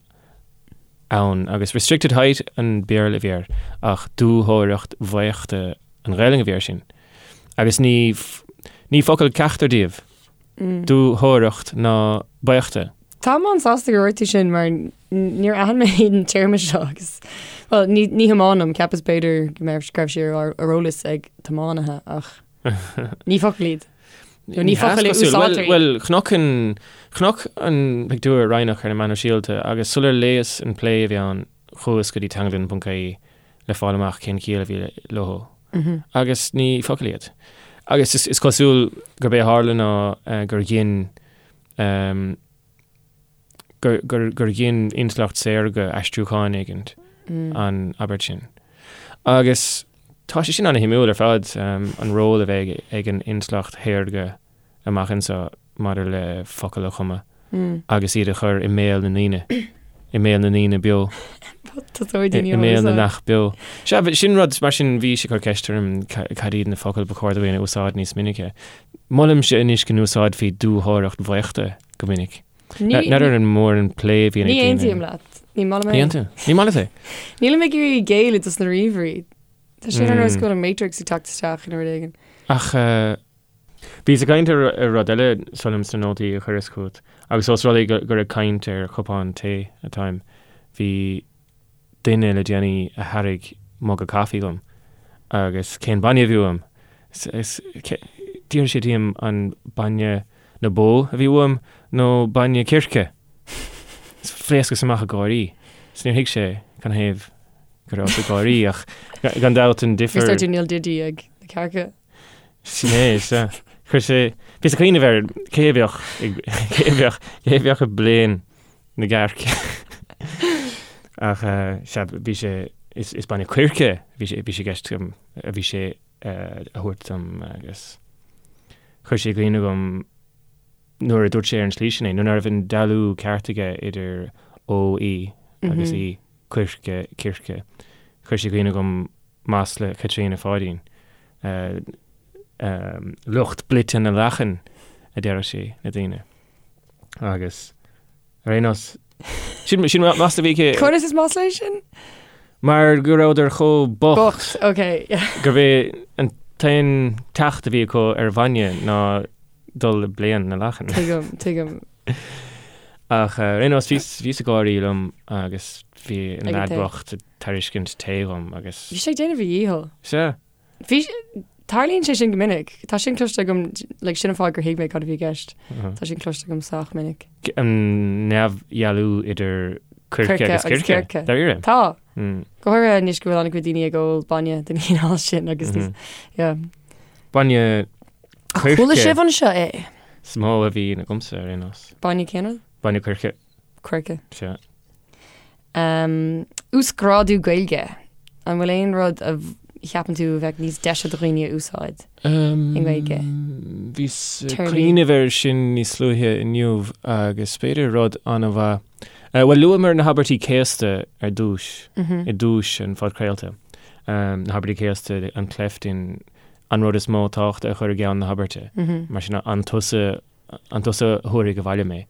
ann agus restricted height an Béarla a bhí air ach dúthóireacht bhaochta an Ghaelainn a bhí air sin. Agus ní, ní focal ceachtar díobh. Dúthóireacht ná baochta. Táim an-sásta gur dhúirt tú sin mar níor aithin mé an téarma seo agus, bhuel, ní, ní thiománaim, cheapas b'fhéidir go mbeadh, go raibh sé ar, ar eolas ag tiománaithe ach ní focal iad. Nó ní focal a úsáidtear iad. Bhuel, chonac an, chonac an pictiúr Raghnach ar na meáin shóisialta agus sular léas an plé a bhí ann chuas go dtí teanglann.ie le fáil amach cén chiall a bhí leo. Agus ní focail iad. Agus is cosúil gurb é a tharla ná gur ghin gur ghin intleacht saorga aistriúchán éigint an abairt sin. Agus tá sé sin an-shuimiúil ar fad, an ról a bheidh ag an intleacht shaorga amach anseo maidir le focail a chumadh agus iad a chur i mbéal na ndaoine, i mbéal na ndaoine beo, i mbéal na neach beo. Sea, sin rud, mar sin bhí sé ag cur ceist orm cad iad na focail ba chóir dúinn a úsáid níos minice. Molaimse anois go n-úsáidfí dúthóireacht bhaochta go minic. N'fheadar an mór an plé a bhíonn ag daoine. Ní aontaím leat. Ní maith liom é. Ní aontaím. Ní maith leat é? Nílim ag iarraidh géilleadh dos na ríomhairí. Tá sé ar nós go bhfuil an Matrix ag teacht isteach nó rud éigin. Ach bhíos ag caint ar rud eile súil liom sna nótaí a chuireas chugat agus ós rud é gur ag caint ar chupán tae atáim, bhí duine le déanaí a thairg muga caife dhom agus cén bainne a bhí uaim? D'fhiafraigh sé díom an bainne na bó a bhí uaim nó bainne circe. Phléascas amach ag gáirí. Is níor thuig sé canathaobh go rabhas ag gáirí ach gan dabht an difear. Dúirt tú níl didí ag na cearca. Sin é, sea. Chuir sé, bhíos ag cuimhneamh ar cé a bheadh ag, cé a bheadh, cé a bheadh ag bleán na gcearc. Ach sea, bhí sé, is, is bainne coirce a bhí sé, bhí sé i gceist agam, a bhí sé a thabhairt dom agus chuir sé i gcuimhne dhom nuair a dúirt sé ar an tslí sin é, nuair nach raibh an dealú ceart aige idir O, E agus I, coirce, circe, chuir sé i gcuimhne dhom masla Chaitríona Pháidín. Lucht blite na lachan, a deireadh sí le daoine. Agus ar aon nós, sin sin masla a bhí aici. Conas is masla é sin? Mar go rabhadar chomh bocht. Bocht, ok, yeah. Gurbh é an t-aon teacht a bhí acu ar bhainne ná dul ag bleán na lachan. Tuigim, tuigim. Ach ar aon nós, bhíos bhíos ag gáirí liom agus bhí an Ag an leaid tae. bocht ag tairiscint tae dhom agus. Bhí sé ag déanamh a dhícheall. Sea. Bhí, tarlaíonn sé sin go minic. Tá sin cloiste agam, like, sin an fáth gur thuig mé cad a bhí i gceist. Tá sin cloiste agam sách minic. An neamhdhealú idir coirce agus circe. Dáiríre. Tá. Go háirithe anois go bhfuil an-chuid daoine ag ól bainne den chineál sin agus níos, yeah. Bainne coirce. Chuala sibh anseo é? Is mó a bhíonn agamsa ar aon nós. Bainne cén rud? Bainne coirce. Coirce. Sea. Um, uasghrádú Gaeilge. An bhfuil aon rud a cheapann tú a bheadh níos deise do dhaoine a úsáid i nGaeilge? Bhíos ag cuimhneamh air sin níos luaithe inniu agus b'fhéidir rud an-mhaith. Bhuel, luamar na habairtí céasta ar dtús, i dtús an phodchraolta. Na habairtí céasta, an cleft in an rud is mó tábhachta a chur i gceann na habairte. Mar sin, an tusa An tusa a thabharfaidh abhaile mé?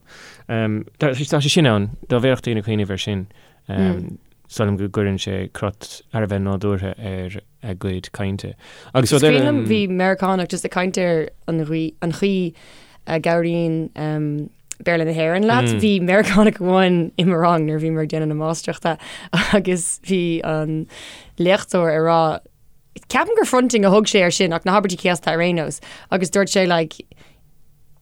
Tá sé sin ann, dá bhféadfadh daoine cuimhneamh air sin, is dóigh liom go gcuireann sé crot thar a bheith nádúrtha ar a gcuid cainte. Agus rud eile. Is cuimhin liom, bhí Meiriceánach just ag caint ar an gcaoi a gcabhraíonn Béarla na hÉireann leat. Bhí Meiriceánach amháin i mo rang nuair a bhíomar ag déanamh na máistreachta agus bhí an léachtóir ag rá, ceapaim gur fronting a thug sé air sin ach na habairtí céasta ar aon nós agus dúirt sé like,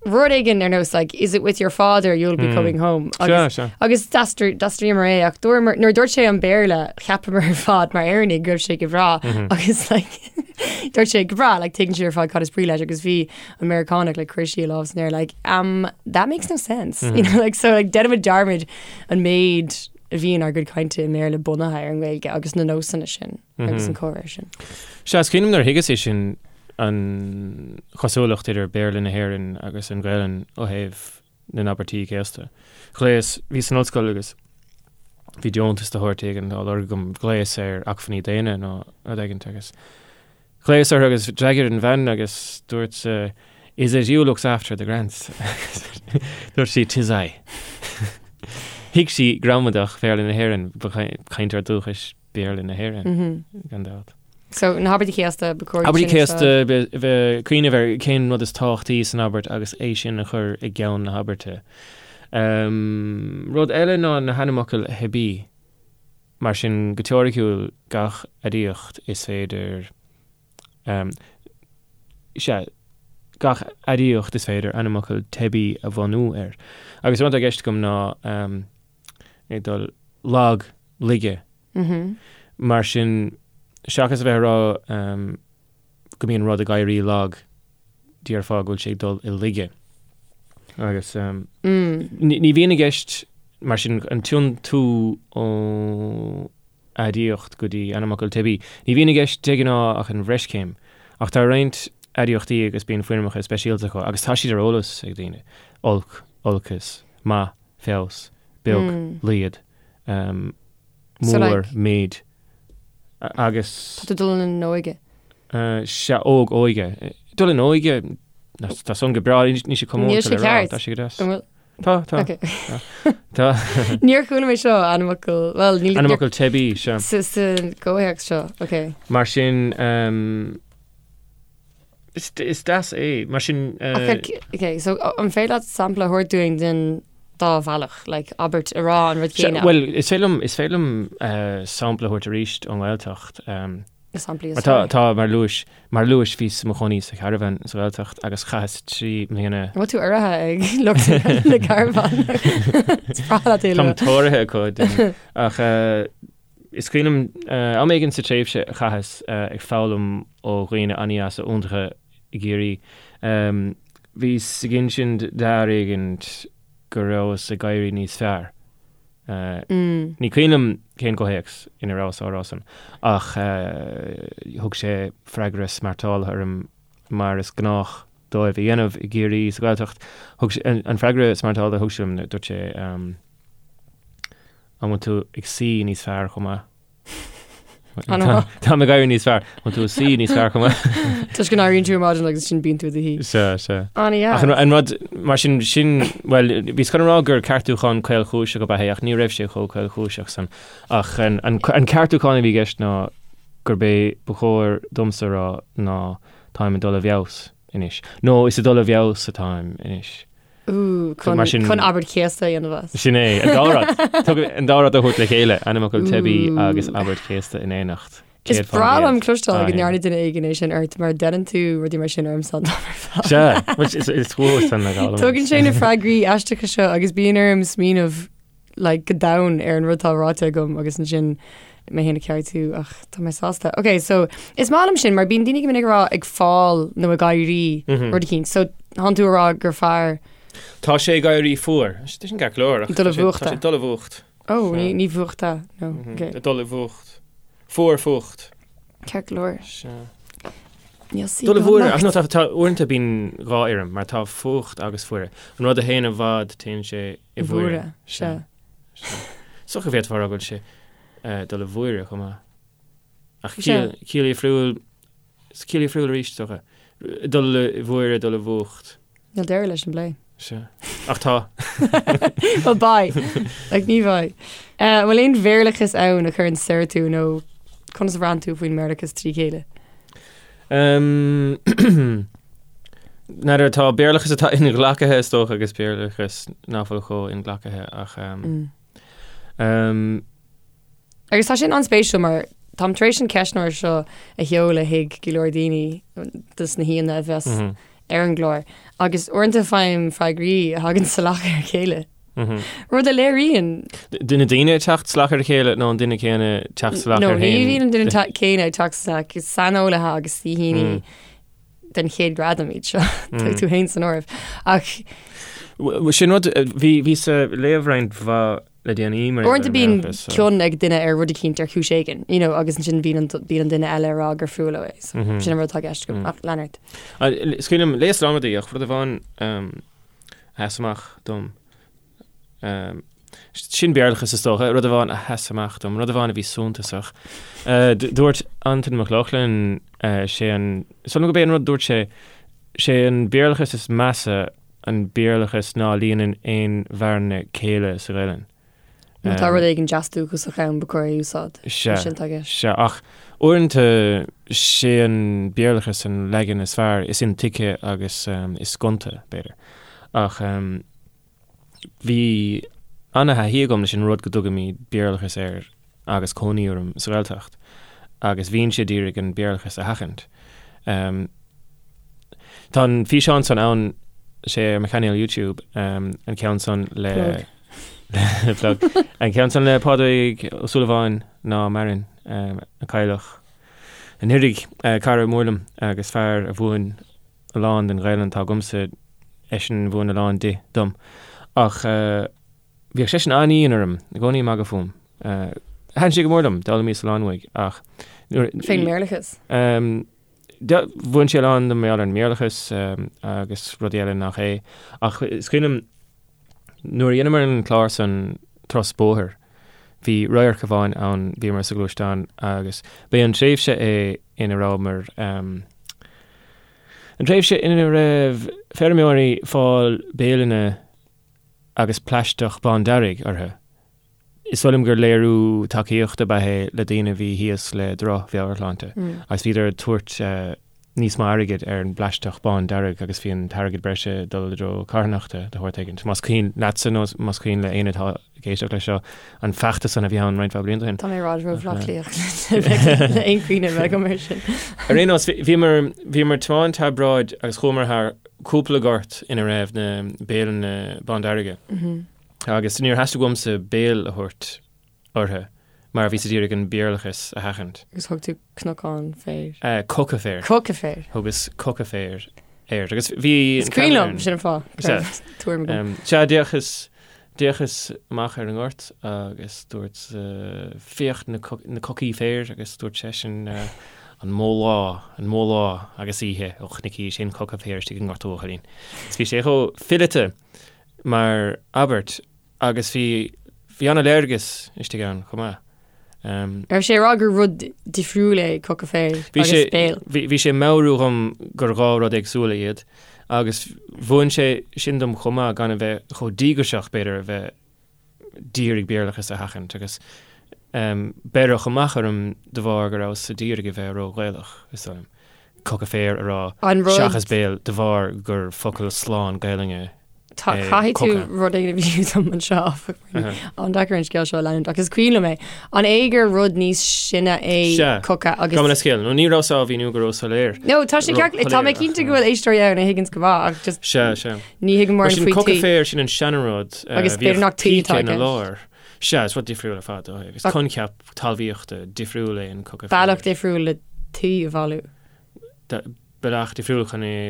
rud éigin ar nós like, is it with your father you'll be coming home agus, Sea, sea. agus d'aistríomar é ach dúramar nuair a dúirt sé an Béarla cheapamar ar fad mar Éireannaigh go raibh sé go breá agus like, dúirt sé go breá like, tuigeann sé ar fad cad is brí leis agus bhí an Meiriceánach like, chuir sí a lámh san aer like, um, that makes no sense you know, like, so like, déanaimid dearmad an méid a bhíonn ár gcuid cainte i mBéarla bunaithe ar an nGaeilge agus na nósanna sin. agus an comhrá sin. Sea, is cuimhin liom nuair a thuigeas é sin, an chosúlacht idir Béarla na hÉireann agus an Ghaelainn ó thaobh na n-abairtí céasta. Ghlaos, bhíos san ollscoil agus bhí deontas de shórt éigin á lorg agam, ghlaos ar acmhainní daonna nó rud éigin agus ghlaos orthu agus d'fhreagair an bhean agus dúirt Is it you looks after the grants? Dúirt sí 'Tis I. Thuig sí gramadach Bhéarla na hÉireann, ba chainteoir dúchais Béarla na hÉireann, gan dabht. So, na habairtí céasta, ba chóir Abairtí céasta, bheith cuimhneamh ar cén rud is tábhachtaí san abairt agus é sin a chur i gceann na habairte. Rud eile ná na hainmfhocail theibí. Mar sin, go teoiriciúil, gach aidiacht is féidir, sea, gach aidiacht is féidir ainmfhocal teibí a bhunú air. Agus an rud atá i gceist agam ná ag dul lag, laige. Mar sin, seachas a bheith ag rá go mbíonn rud ag éirí lag, déarfá go bhfuil sé ag dul i laige. Agus ní bhíonn i gceist, mar sin, an tiontú ó aidiacht go dtí ainmfhocal teibí. Ní bhíonn i gceist de ghnáth ach an bhreischéim. Ach tá roinnt aidiachtaí agus bíonn foirmeacha speisialta acu agus tá siad ar eolas ag daoine, olc, olcas, maith, feabhas, beag, laghad, mór, méid, agus. Tá tú dul in óige. Sea, óg, óige. Dul in óige, tá san go breá, níl sé comónta le rá, tá sé go deas. Tá, tá. Ok. Tá. Níor chuala mé seo ainmfhocal, well, níl... Ainmfhocal teibí, sea. Sa gcomhthéacs seo, ok. Mar sin, is deas é, mar sin... Ok, so an féidir leat sampla a thabhairt dúinn den dá bhealach, like abairt a rá an rud céanna? Bhuel, is féidir liom, is féidir liom sampla a thabhairt arís ón nGaeltacht. Na samplaí is fearr. Tá, mar luais, mar luais bhíos i mo chónaí sa charbhán sa Ghaeltacht agus chaitheas 3 mbliana. An bhfuil tú urraithe ag lucht na gcarbhán? Is breá leat é a lua. Táim tóraithe acu, déarfainn. Ach is cuimhin liom am éigin sa tréimhse a chaitheas ag foghlaim ó dhaoine an-dheasa iontacha i gCiarraí, bhíos ag insint d'fhear éigin go rabhas ag éirí níos fearr. Ní cuimhin liom cén comhthéacs ina rabhas á rá san, ach thug sé freagra smeartálaithe orm, mar is gnách dóibh a dhéanamh i gCiarraí sa Ghaeltacht. Thug sé, an freagra smeartálaithe a thug sé liom, dúirt sé, An bhfuil tú ag suí níos fearr chomh maith? Táim ag éirí níos fearr. An tú ag suí níos fearr chomh maith? Toisc go n-éiríonn tú ar maidin agus sin bíonn tú i do shuí. Sea, sea. An-dheas. Ach an rud, mar sin, sin, bhuel, bhíos chun a rá gur ceartúchán caolchúiseach ab ea é, ach ní raibh sé chomh caolchúiseach san. Ach an, an, an ceartúchán a bhí i gceist ná gurb é ba chóir domsa a rá ná táim ag dul i bhfeabhas anois. Nó is ag dul i bhfeabhas atáim anois. Ooh, chun, Mar sin- chun abairt chéasta a dhéanamh as. Sin é, an dá rud. Tug an dá rud a thabhairt le chéile, ainmfhocal teibí agus abairt chéasta in éineacht. Is breá liom cloisteáil go ndearna duine éigin é sin ort mar deineann tú rudaí mar sin ormsa an t-am ar fad. Sea, which is is fuath san le gabháil. Tugann sé na freagraí aisteacha seo agus bíonn orm smaoineamh like, go domhain ar an rud atá ráite agam agus ansin mé féin a cheartú ach tá mé sásta. Ok, so is maith liom sin mar bíonn daoine go minic ag rá ag fáil nó ag éirí mm -hmm. rud eicínt. So tánn tú ag rá gur fearr Tá sé ag éirí fuar. Tá sin ceart go leor. Dul i bhfuacht. Tá sé dul i bhfuacht. Ó, ní ní bhfuachta no. Mm -hmm. okay. Dul i bhfuacht. Fuar fuacht. Ceart go leor. Dul i bhfuaire, ach no, tá, tá uaireanta bíonn dhá fhoirm, mar tá fuacht agus fuaire. An rud a théann i bhfad, téann sé i bhfuaire. Sea. Is dócha go bhféadfá a rá go bhfuil sé dul i bhfuaire chomh maith. Ach ciall difriúil, ciall difriúil arís, is dócha. Dul i bhfuaire, dul i bhfuacht. Níl deireadh leis an bplé. Sea. Ach tá. Well, beidh. Like, ní bheidh. An bhfuil aon Bhéarlachas ann a chuireann soir tú nó conas a bhraitheann tú faoin mBéarlachas trí chéile? N'fheadar, tá Béarlachas atá inghlactha is dócha agus Béarlachas nach bhfuil chomh inghlactha ach Agus tá sin an-spéisiúil mar táim tar éis an ceistneoir seo a sheoladh chuig go leor daoine dos na haíonna a bheas ar an gclár agus uaireanta faighim freagraí a thagann salach ar a chéile. Rud a léiríonn. Na daoine ag teacht salach ar a chéile nó an duine céanna ag teacht salach air féin? No, ní bhíonn an duine céanna ag teacht salach, is saineolaithe agus saoithíní den chéad ghradam iad seo, tá tú féin san áireamh. Ach. Sin rud, bhíos ag léamh roinnt mhaith le déanaí mar Uaireanta bíonn cion ag duine ar rud eicínt ar chúis éigin, you know, agus ansin bíonn an, bíonn an duine eile ag rá gur fuath leo é. So, sin an rud atá i gceist agam. Ach lean ort. Is cuimhin liom, léas lán rudaí ach rud amháin. a sheas amach dom. Sin Béarlachas is dócha, rud amháin a sheas amach dom, rud amháin a bhí suntasach. Dúirt Antain Mac Lochlainn, sé an, is dóigh liom gurb é an rud a dúirt sé, sé an Béarlachas is measa an Béarlachas ná líonann aon bhearna céille sa Ghaelainn. Má tá rud éigin deas dúchasach ann ba chóir é a úsáid. Sea, Sin atá i gceist. sea, ach uaireanta sé an Béarlachas an leagan is fearr, is intuigthe agus is gonta, b'fhéidir. Ach bhí ana-thaithí agam leis an rud go dtugaimid Béarlachas air agus cónaí orm sa Ghaeltacht agus bhínnse d'iarraidh an Béarlachas a sheachaint. Tá an físeán san ann, sé ar mo chainéal YouTube, an ceann san le. Plug. Plug. An ceann san le Pádraig Ó Súilleabháin ná maireann, a cailleadh anuraidh, cara mór liom agus fear a mhúin a lán den Ghaelainn atá agamsa, eisean a mhúin a lán di dom. Ach bhíodh seisean an-dhian orm, i gcónaí ag magadh fúm. Thaitin sé go mór liom, d'fhoghlaimíos a lán uaidh ach nuair. Fén mBéarlachas? Mhúin sé a lán dom mar gheall ar an mBéarlachas agus rudaí eile nach é. Ach is cuimhin liom nuair a dheineamar an clár san Turas Bóthair, bhí radharc amháin ann, bhíomar sa ghluaisteán agus b'é an tréimhse é ina rabhamar, an tréimhse ina raibh feirmeoirí ag fáil béileanna agus plaisteach bándearg orthu. Is dóigh liom gur léiriú tacaíochta ab ea é le daoine a bhí thíos le droch-mheabhairshláinte agus bhíodar ag tabhairt níos mó airgid ar an bplaisteach bándearg agus bhí an t-airgead breise ag dul i dtreo carthanachta de shórt éigin. Más cuimhin leatsa nó más cuimhin le éinne atá ag éisteacht leis seo an feachtas san a bhí ann roinnt mhaith blianta ó shin. Tá mé i bhfad ró-Bhaile Átha Cliath le aon chuimhne a bheith agam air sin. Ar aon nós, bhíomar, bhíomar ag tiomáint thar bráid agus chuamar thar cúpla gort ina raibh na béileanna bándearga. Agus níor theastaigh uaimse béil a thabhairt orthu mar bhíos a d'iarraidh an Béarlachas a sheachaint. Agus thug tú cnocán féir. Coca féir. Coca féir. Thugas coca féir air. Agus bhí Is cuimhin liom, sin an fáth. Sea. Tuairim agam. Sea, d'fhéachas, d'fhéachas amach ar an ngort agus dúirt, féach na na cocaí féir agus dúirt seisean, an mó lá, an mó lá agus oíche ó chonaicis aon choca féir istigh i ngort a bhuachaillín. Is bhí sé chomh fileata mar abairt agus bhí bhí an-léargas istigh ann chomh maith. Raibh sé ag rá gur rud difriúil é coca féir Bhí agus sé béal? bhí bhí sé ag meabhrú dhom gur dhá rud éagsúla iad agus mhúin sé sin dom chomh maith gan a bheith chomh díograiseach b'fhéidir a bheith d'iarraidh Béarlachas a sheachaint agus beireadh amach orm de bharr go rabhas d'iarraidh a bheith ró-Ghaelach, is dóigh liom. Coca féir a rá An rud. seachas béal de bharr gur focal slán Gaelainne Tá, é caithfidh tú coca. rud éigin a mhíniú dom anseo, áfach, mar an-deacair an scéal seo a leanúint, ach is cuimhin liom é. An é gur rud níos sine é Sea. coca agus. Gabh mo leithscéal, nó ní rabhas á mhíniú go ró-soiléir. No, tá sé ceart, tá mé Ró-shoiléir, cinnte ach, go bhfuil éisteoirí ann a thuigeanns go maith, ach just Sea, sea. Ní thuigim Mar mórán sin faoi coca tuí. féir, sin an seanrud. Agus b'fhéidir nach tuí Píce atá i ina gceist. lár. Sea, is rud difriúil ar fad é. Is coincheap talmhaíochta difriúil é an coca féir. Bealach difriúil le tuí a bhailiú. Bealach difriúil chun é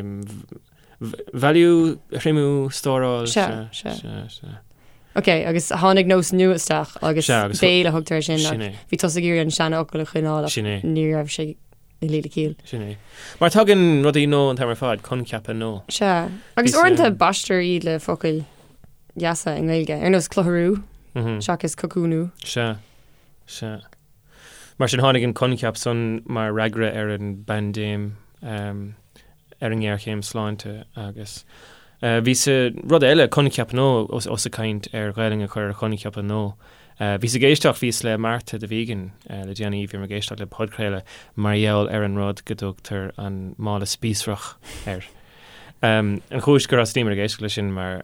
bhailiú, a thriomú, stóráil. Sea, Sea, sea. sea, sea. Ok, agus tháinig nós nua isteach agus Sea, agus béal a thugtar air sin Sin ach é. bhí tusa ag iarraidh an seanfhocal a choinneáil ach Sin é. ní raibh sé ag luí le ciall. Sin é. Mar tagann rudaí nua an t-am ar fad, coincheapa nua. Sea. Agus Bhí uaireanta sé- baistear iad le focail dheasa i nGaeilge, ar nós clutharú seachas cocúnú. Sea. Sea. Mar sin tháinig an coincheap san mar fhreagra ar an bpaindéim, ar an ngéarchéim sláinte agus bhí sa rud eile, coincheap nua, ós ag caint ar Ghaelainn a chur ar choincheapa nua. Bhíos ag éisteacht, bhíos le Marta the Vegan le déanaí, bhíomar ag éisteacht le podchraoladh mar gheall ar an rud go dtugtar an mála spíosrach air. An chúis gur thosnaíomar ag éisteacht leis sin mar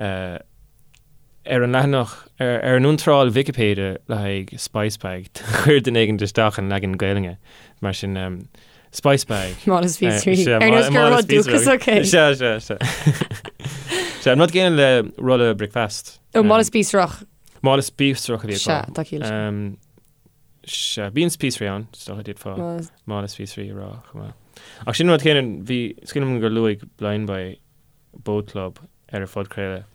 ar an leathanach, ar an iontráil Vicipéide le haghaidh spice bag, chuir duine éigin isteach an leagan Gaelainne, mar sin spice bag. Mála spíosraí. Ar nós gur rud dúchasach é. Sea, sea, sea. Sea, an rud céanna le rolla bricfeasta. Ó, mála spíosrach. Mála spíosrach a bhí acu. Sea, tá ciall leis. Sea, bíonn spíosraí ann, is dócha d'fhéadfá mála spíosraí a rá chomh maith. Ach sin an rud céanna, bhí, is cuimhin liom gur luaigh Blindboy Boatclub ar a phodchraoladh,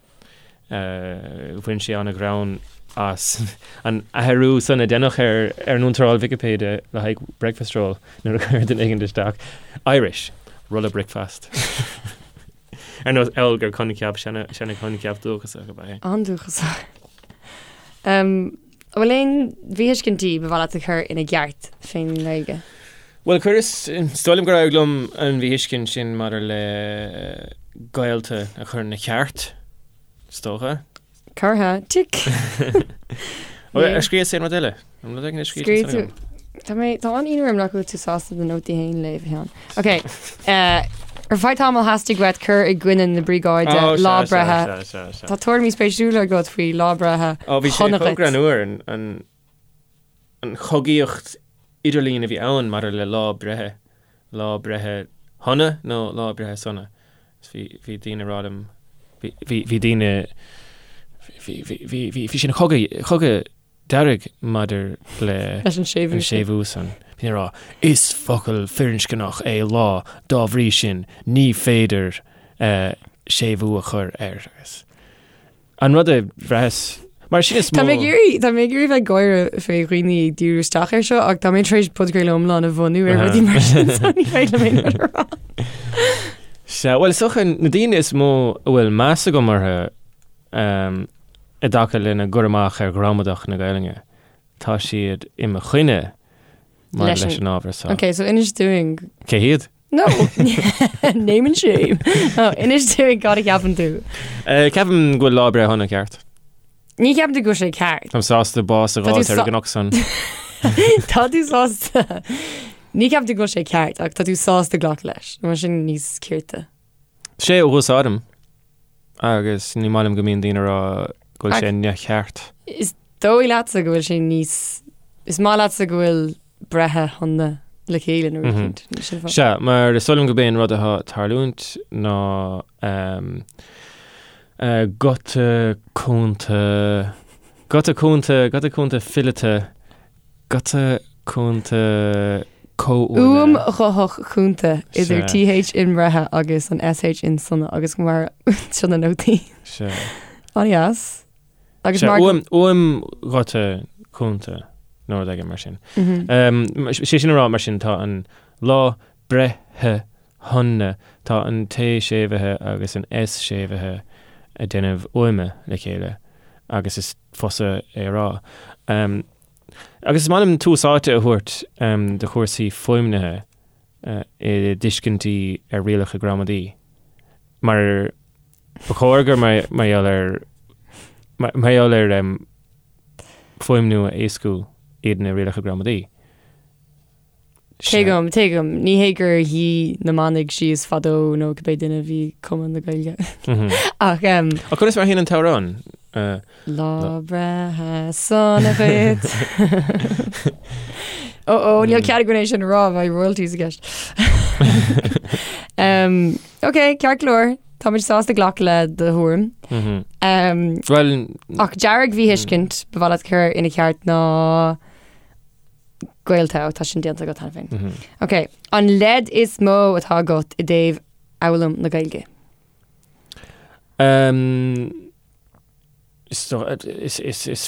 bhain sé an-ghreann as an athrú san a deineadh ar ar an iontráil Vicipéide le haghaidh breakfast roll nuair a chuir duine éigin isteach Irish, rolla bricfeasta. Ar nós amhail gur coincheap, seana-choincheap dúchasach ab ea é. An-dúchasach. An bhfuil aon mhíthuiscintí ba mhaith leat a chur ina gceart fén nGaeilge? Bhuel, chuireas, is dóigh liom gur éirigh liom an mhíthuiscint sin maidir le gaolta a chur ina ceart, is dócha. Curtha, tic! Ar scríobhas aon rud eile? An rud éigin a scríobh tú? Tá mé, tá an-ionadh orm nach bhfuil tú sásta do nótaí féin a léamh, a Sheáin. Ok, ar feadh tamaill theastaigh uait cur i gcoinne na briogáide lá breithe. Tá tuairimí spéisiúla agat faoi lá breithe Ó, bhí sé chomh greannmhar an an chogaíocht idirlín a bhí ann maidir le lá breithe, lá breithe shona nó lá breithe sona. Bhí, bhí daoine ag rá liom, bhí, bhí, bhí daoine, bhí, bhí, bhí, bhí, bhí sin cogadh, cogadh dearg maidir le Leis an séimhiú an séimhiú san. Bhí ag rá, is focal firinscneach é lá, dá bhrí sin, ní féidir eh, séimhiú a chur air. Agus An rud a bhraitheas, mar sin is mó. Tá mé ag iarraidh, tá mé ag iarraidh bheith ag gáire fé dhaoine ag díriú isteach air seo ach tá mé tar éis podchraoladh iomlán a bhunú ar rudaí mar sin so ní féidir liom aon rud a rá. Sea, bhuel, is dócha na daoine is mó a bhfuil meas agam orthu i dtaca lena gcur amach ar ghramadach na Gaelainne, tá siad i mo choinne maidir leis an ábhar seo. Ok, so inis dúinn. Cé hiad? No! Name and shame. No, inis dúinn cad a cheapann tú. Eh, ceapaim go bhfuil lá breithe shona ceart. Ní cheapann tú go bhfuil sé ceart. Táim sásta bás a Tá tú fháilt ar sa- an gcnoc san. Tá tú sásta. Ní cheapann tú go bhfuil sé ceart ach tá tú sásta glacadh leis. Mar sin níos cirte. Sé a úsáidim agus ní maith liom go mbíonn daoine ag rá go bhfuil sé neamhcheart. Is dóigh leatsa go bhfuil sé níos Is maith leatsa go bhfuil breithe shona le chéile nó rud éicint. Sin fáth. Sea, mar is dóigh liom gurb é an rud atá ag tarlúint ná guta cúnta, guta cúnta, guta cúnta fileata, guta cúnta comhuaine. Uaim ghuthach chúnta idir TH in breithe agus an SH in sona agus mar seo na nótaí. Sea. An-dheas. Agus mar uaim, uaim ghuta cúnta nó rud éigin mar sin. Sé sin a rá mar sin tá an lá breithe shona, tá an T séimhithe agus an S séimhithe ag déanamh uaime le chéile agus is fusa é a rá. Agus is maith liom tús áite a thabhairt do chúrsaí fuaimnithe i dtuiscintí ar rialacha gramadaí. Mar ba chóir gur mar gheall ar mar gheall ar fuaimniú a éascú iad na rialacha gramadaí. Tuigim, tuigim. Ní hé gur shuigh na manaigh síos fadó nó cibé duine a bhí ag cumadh na Gaeilge. Ach. Ach conas mar a théann an t-amhrán? Lá breithe sona dhuit. Ó ó, níl cead againn é sin a rá, beidh royalties i gceist. Um, ok, ceart go leor, táimid sásta glacadh le do thuairim. Um, Well, ach dearg-mhíthuiscint ba mhaith leat cur ina ceart ná gaolta, ó, tá sin déanta agat cheana féin. Ok, an leid is mó atá agat i dtaobh fhoghlaim na Gaeilge? Um, Is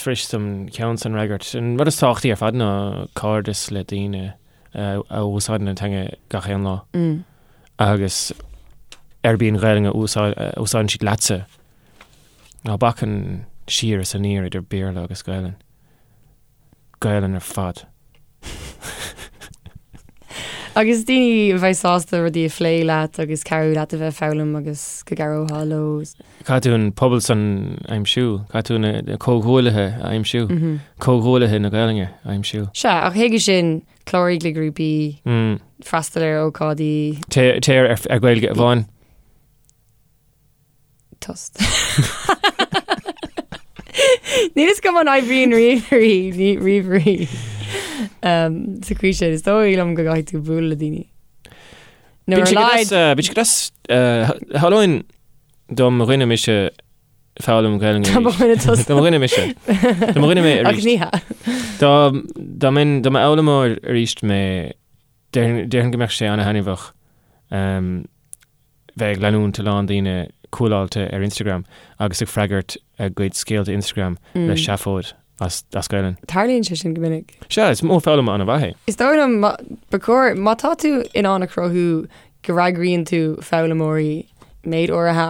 fuirist an ceann san a fhreagairt. An rud is tábhachtaí ar fad ná cairdeas le daoine a úsáideann an teanga gach aon lá. Agus arb í an Ghaelainn a úsáideann siad leatsa. Ná bac an siar is aniar idir Béarla agus Gaelainn. Gaelainn ar fad. Agus daoine a bheidh sásta rudaí a phlé leat agus cabhrú leat a bheith ag foghlaim agus go gcabhrófá leo. Caithfidh tú an pobal san a aimsiú, caithfidh tú na comhghuaillithe a aimsiú, comhghuaillithe na Gaelainne a aimsiú. Sea, ach chuige sin, cláraigh le grúpaí, freastal ar ócáidí. Téir ar Gaeilge Amháin. Tost. Níl fhios agam an oibríonn ríomhairí, ní ríomhairí. Um, sa chaoi sin, is dóigh liom go gcaithfidh tú bualadh le daoine. Nó ar a laghad. Bíonn sé go deas, tharlóinn dá mba dhuine mise foghlaim Gaelainne Dá mba dhuine tusa. Dá mba dhuine mise. Dá mba dhuine mé arís. Ach ní hea. Dá dá mbeinn dá mba fhoghlaimeoir arís mé déarfainn go mbeadh sé ana-thaitneamhach. bheith ag leanúint a lán daoine cúláilte ar Instagram agus ag freagairt a gcuid scéalta Instagram le seafóid as Gaelainn. Tarlaíonn sé sin go minic. Sea, is modh foghlama an-mhaith é. Is dóigh liom, ba chóir, má tá tú in ann a chruthú go bhfreagraíonn tú foghlaimeoirí. méid áirithe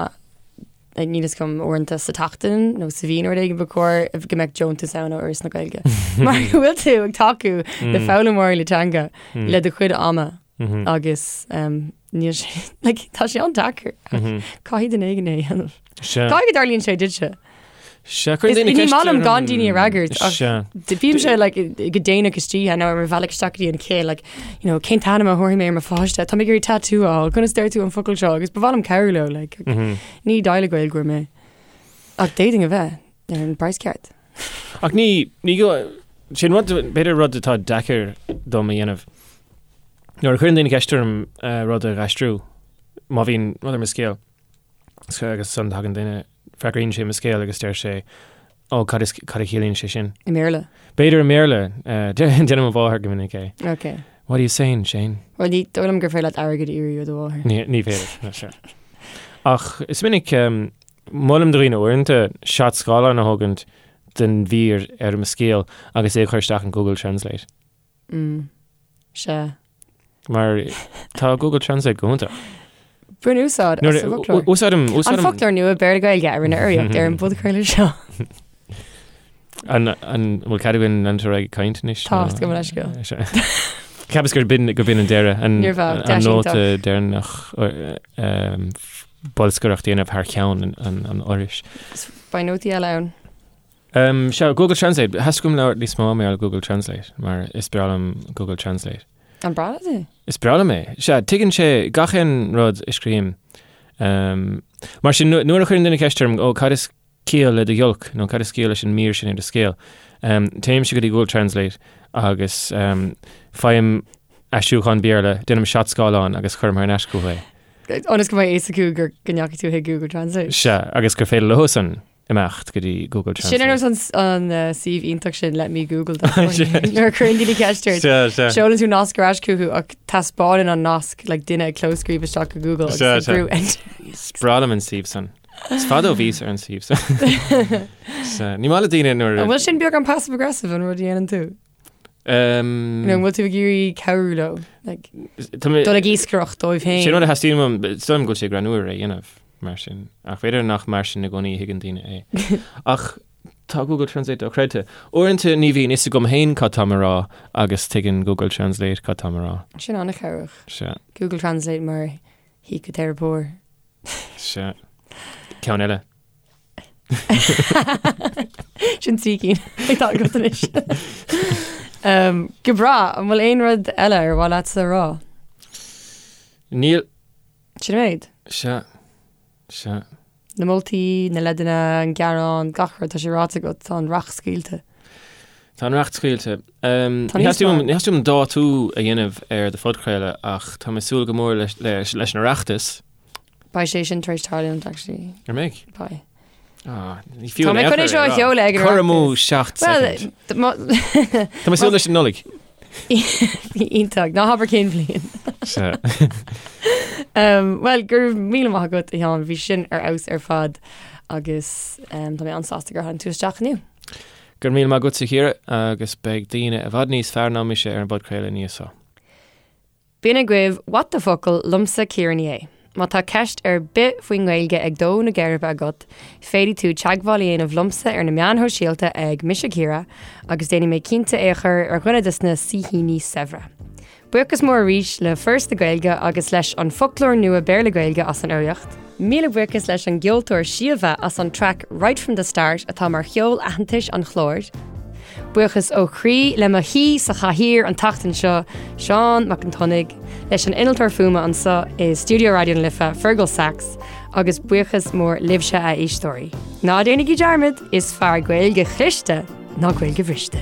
níl fhios agam uaireanta sa tseachtain nó sa mhí nó rud éigin ba chóir go mbeadh deontas ann ó Fhoras na Gaeilge. Mar go bhfuil tú ag tacú le foghlaimeoirí na teanga le do chuid ama agus níl sé like, tá sé an-deacair. Caithfidh duine éigin é a dhéanamh. Caithfidh go dtarlaíonn sé duitse. Sea, cuireann daoine Ní ceist maith liom orm. gan daoine a fhreagairt ach Sea. bímse like, go déanach istoíche nó ar mo bhealach isteach go dtí an chéill like, you know, cén t-ainm a thabharfaidh mé ar mo pháiste, tá mé ag iarraidh tattoo a fháil, conas deir tú an focal seo agus ba mhaith liom cabhrú leo like, ní deighleog Gaeilgeoir mé. Ach d'fhéadfainn a bheith ar an bpraghas ceart. Ach ní, ní go, sin rud, b'fhéidir rud atá deacair dom a dhéanamh. Nuair a chuireann daoine ceist orm eh, rud a dh'aistriú, má bhíonn rud ar mo scéal, agus ansan tagann duine, freagraíonn sé mo scéal agus deir sé, Ó, cad is, cad a chiallaíonn sé sin? I mBéarla? B'fhéidir i mBéarla. Déanann mo mháthair go minic é. Ok. What are you saying, Shane? Bhuel, ní dóigh liom gur féidir leat airgead a iarraidh ó do mháthair. Ní, ní féidir, no, sure. Ach is minic, molaim do dhaoine uaireanta seat scáileáin a thógaint den mhír ar mo scéal agus é a chur isteach in Google Translate. Mm. Sea. Mar tá Google Translate go hiontach. Bain úsáid as an bhfoclóir. Úsáidim An foclóir nua Béarla Gaeilge a rinne urraíocht ar an bpodchraoladh seo. An bhfuil cead againn leanúint ar aghaidh ag caint anois? Tá, gabh mo leithscéal. Cheapas gur b'in gur b'in an deireadh, an nóta deireanach bolscaireacht a dhéanamh thar ceann an Fhorais. Beidh nótaí eile ann. Um, sea, Google Translate. Theastaigh uaim labhairt níos mó mar gheall ar Google Translate, mar is breá liom Google Translate. An breá leat é? Is breá liom é. Sea, tuigeann sé gach aon rud a scríobhaim. Um, mar sin, nuair a chuireann duine ceist orm, ó, cad is ciall le do ghiolc, nó cad is ciall leis an mír sin ar do scéal, um, téimse go dtí Google Translate agus um, faighim aistriúchán Béarla, déanaim seat scáileáin agus cuirim thar n-ais chucu é. Ionas go mbeidh a fhios acu gur go ndeachaigh tú chuig Google Translate. Sea, agus gur féidir leosan imeacht go dtí Google Translate. Sin ar nós an suíomh iontach sin Let Me Google that for you. Nuair a chuireann daoine ceist ort, seolann tú nasc ar ais chucu ach taispeánann an nasc like duine ag clóscríobh isteach go Google agus ag brú enter. Is breá liom an suíomh san. Is fada ó bhíos ar an suíomh san. Ní maith le daoine nuair An bhfuil sin beagán passive aggressive an rud a dhéanann tú? Um, Nó an bhfuil tú ag iarraidh cabhrú leo? Like, tá mé- dul ag iascaireacht dóibh féin. Sin rud a theastaíonn uaim, is dóigh liom go bhfuil sé greannmhar é a dhéanamh mar sin, ach b'fhéidir nach mar sin i gcónaí a thuigeann daoine é. Ach tá Google Translate dochreidte. Uaireanta ní bhíonn fhios agam féin cad táim a rá agus tuigeann Google Translate cad táim a rá. Sin an-chabhrach. Sea, Google Translate mar shíciteiripeoir. sea. Ceann eile. Sin trí cinn atá agat anois. Um, go breá, an bhfuil aon rud eile ar mhaith leatsa a rá? Níl. Sin an méid. Sea. Sea. Na moltaí, na leideanna, an gearán, gach rud, tá sé ráite agat, tá an racht scaoilte. Tá an racht scaoilte. Um, ní theastaíonn uaim dátú a dhéanamh ar do phodchraoladh ach tá mé ag súil go mór leis, leis, leis an Oireachtas. Beidh sé sin tar éis tarlúint, actually. An mbeidh? Beidh. Ah, ní fiú Tá mé chun é seo a sheoladh ag an Cur amú Oireachtas. 7 Well, soicind. Tá mé ag súil leis an Nollaig. Iontach, ná habair cén bhliain. Sea. Um, well, go raibh míle maith agat, a Sheáin, bhí sin ar fheabhas ar fad agus um, tá mé an-sásta gur tháinig tú isteach inniu. Go raibh míle maith agatsa, a Chiara, agus beidh daoine i bhfad níos fearr ná mise ar an bpodchraoladh ina dhiaidh seo. B'in agaibh What the Focal liomsa Ciara Ní É. Má tá ceist ar bith faoin nGaeilge ag dó na geirbe agat, féadfaidh tú teagmháil a dhéanamh liomsa ar na meáin shóisialta ag Mise Ciara agus déanfaidh mé cinnte é a chur ar dhuine de na saoithíní saibhre. Buíochas mór arís le Foras na Gaeilge agus leis an Foclóir Nua Béarla-Gaeilge as an urraíocht. Míle buíochas leis an gceoltóir Síomha as an traic Right From The Start atá mar cheol aitheantais an chláir. Buíochas ó chroí le mo shaoi sa chathaoir an tseachtain seo, Seán Mac an tSionnaigh, leis an innealtóir fuaime anseo i stiúideo Raidió na Life, Fergal Sachs, agus buíochas mór libhse a éisteoirí. Ná déanaigí dearmad, is fearr Gaeilge chliste ná Gaeilge bhriste.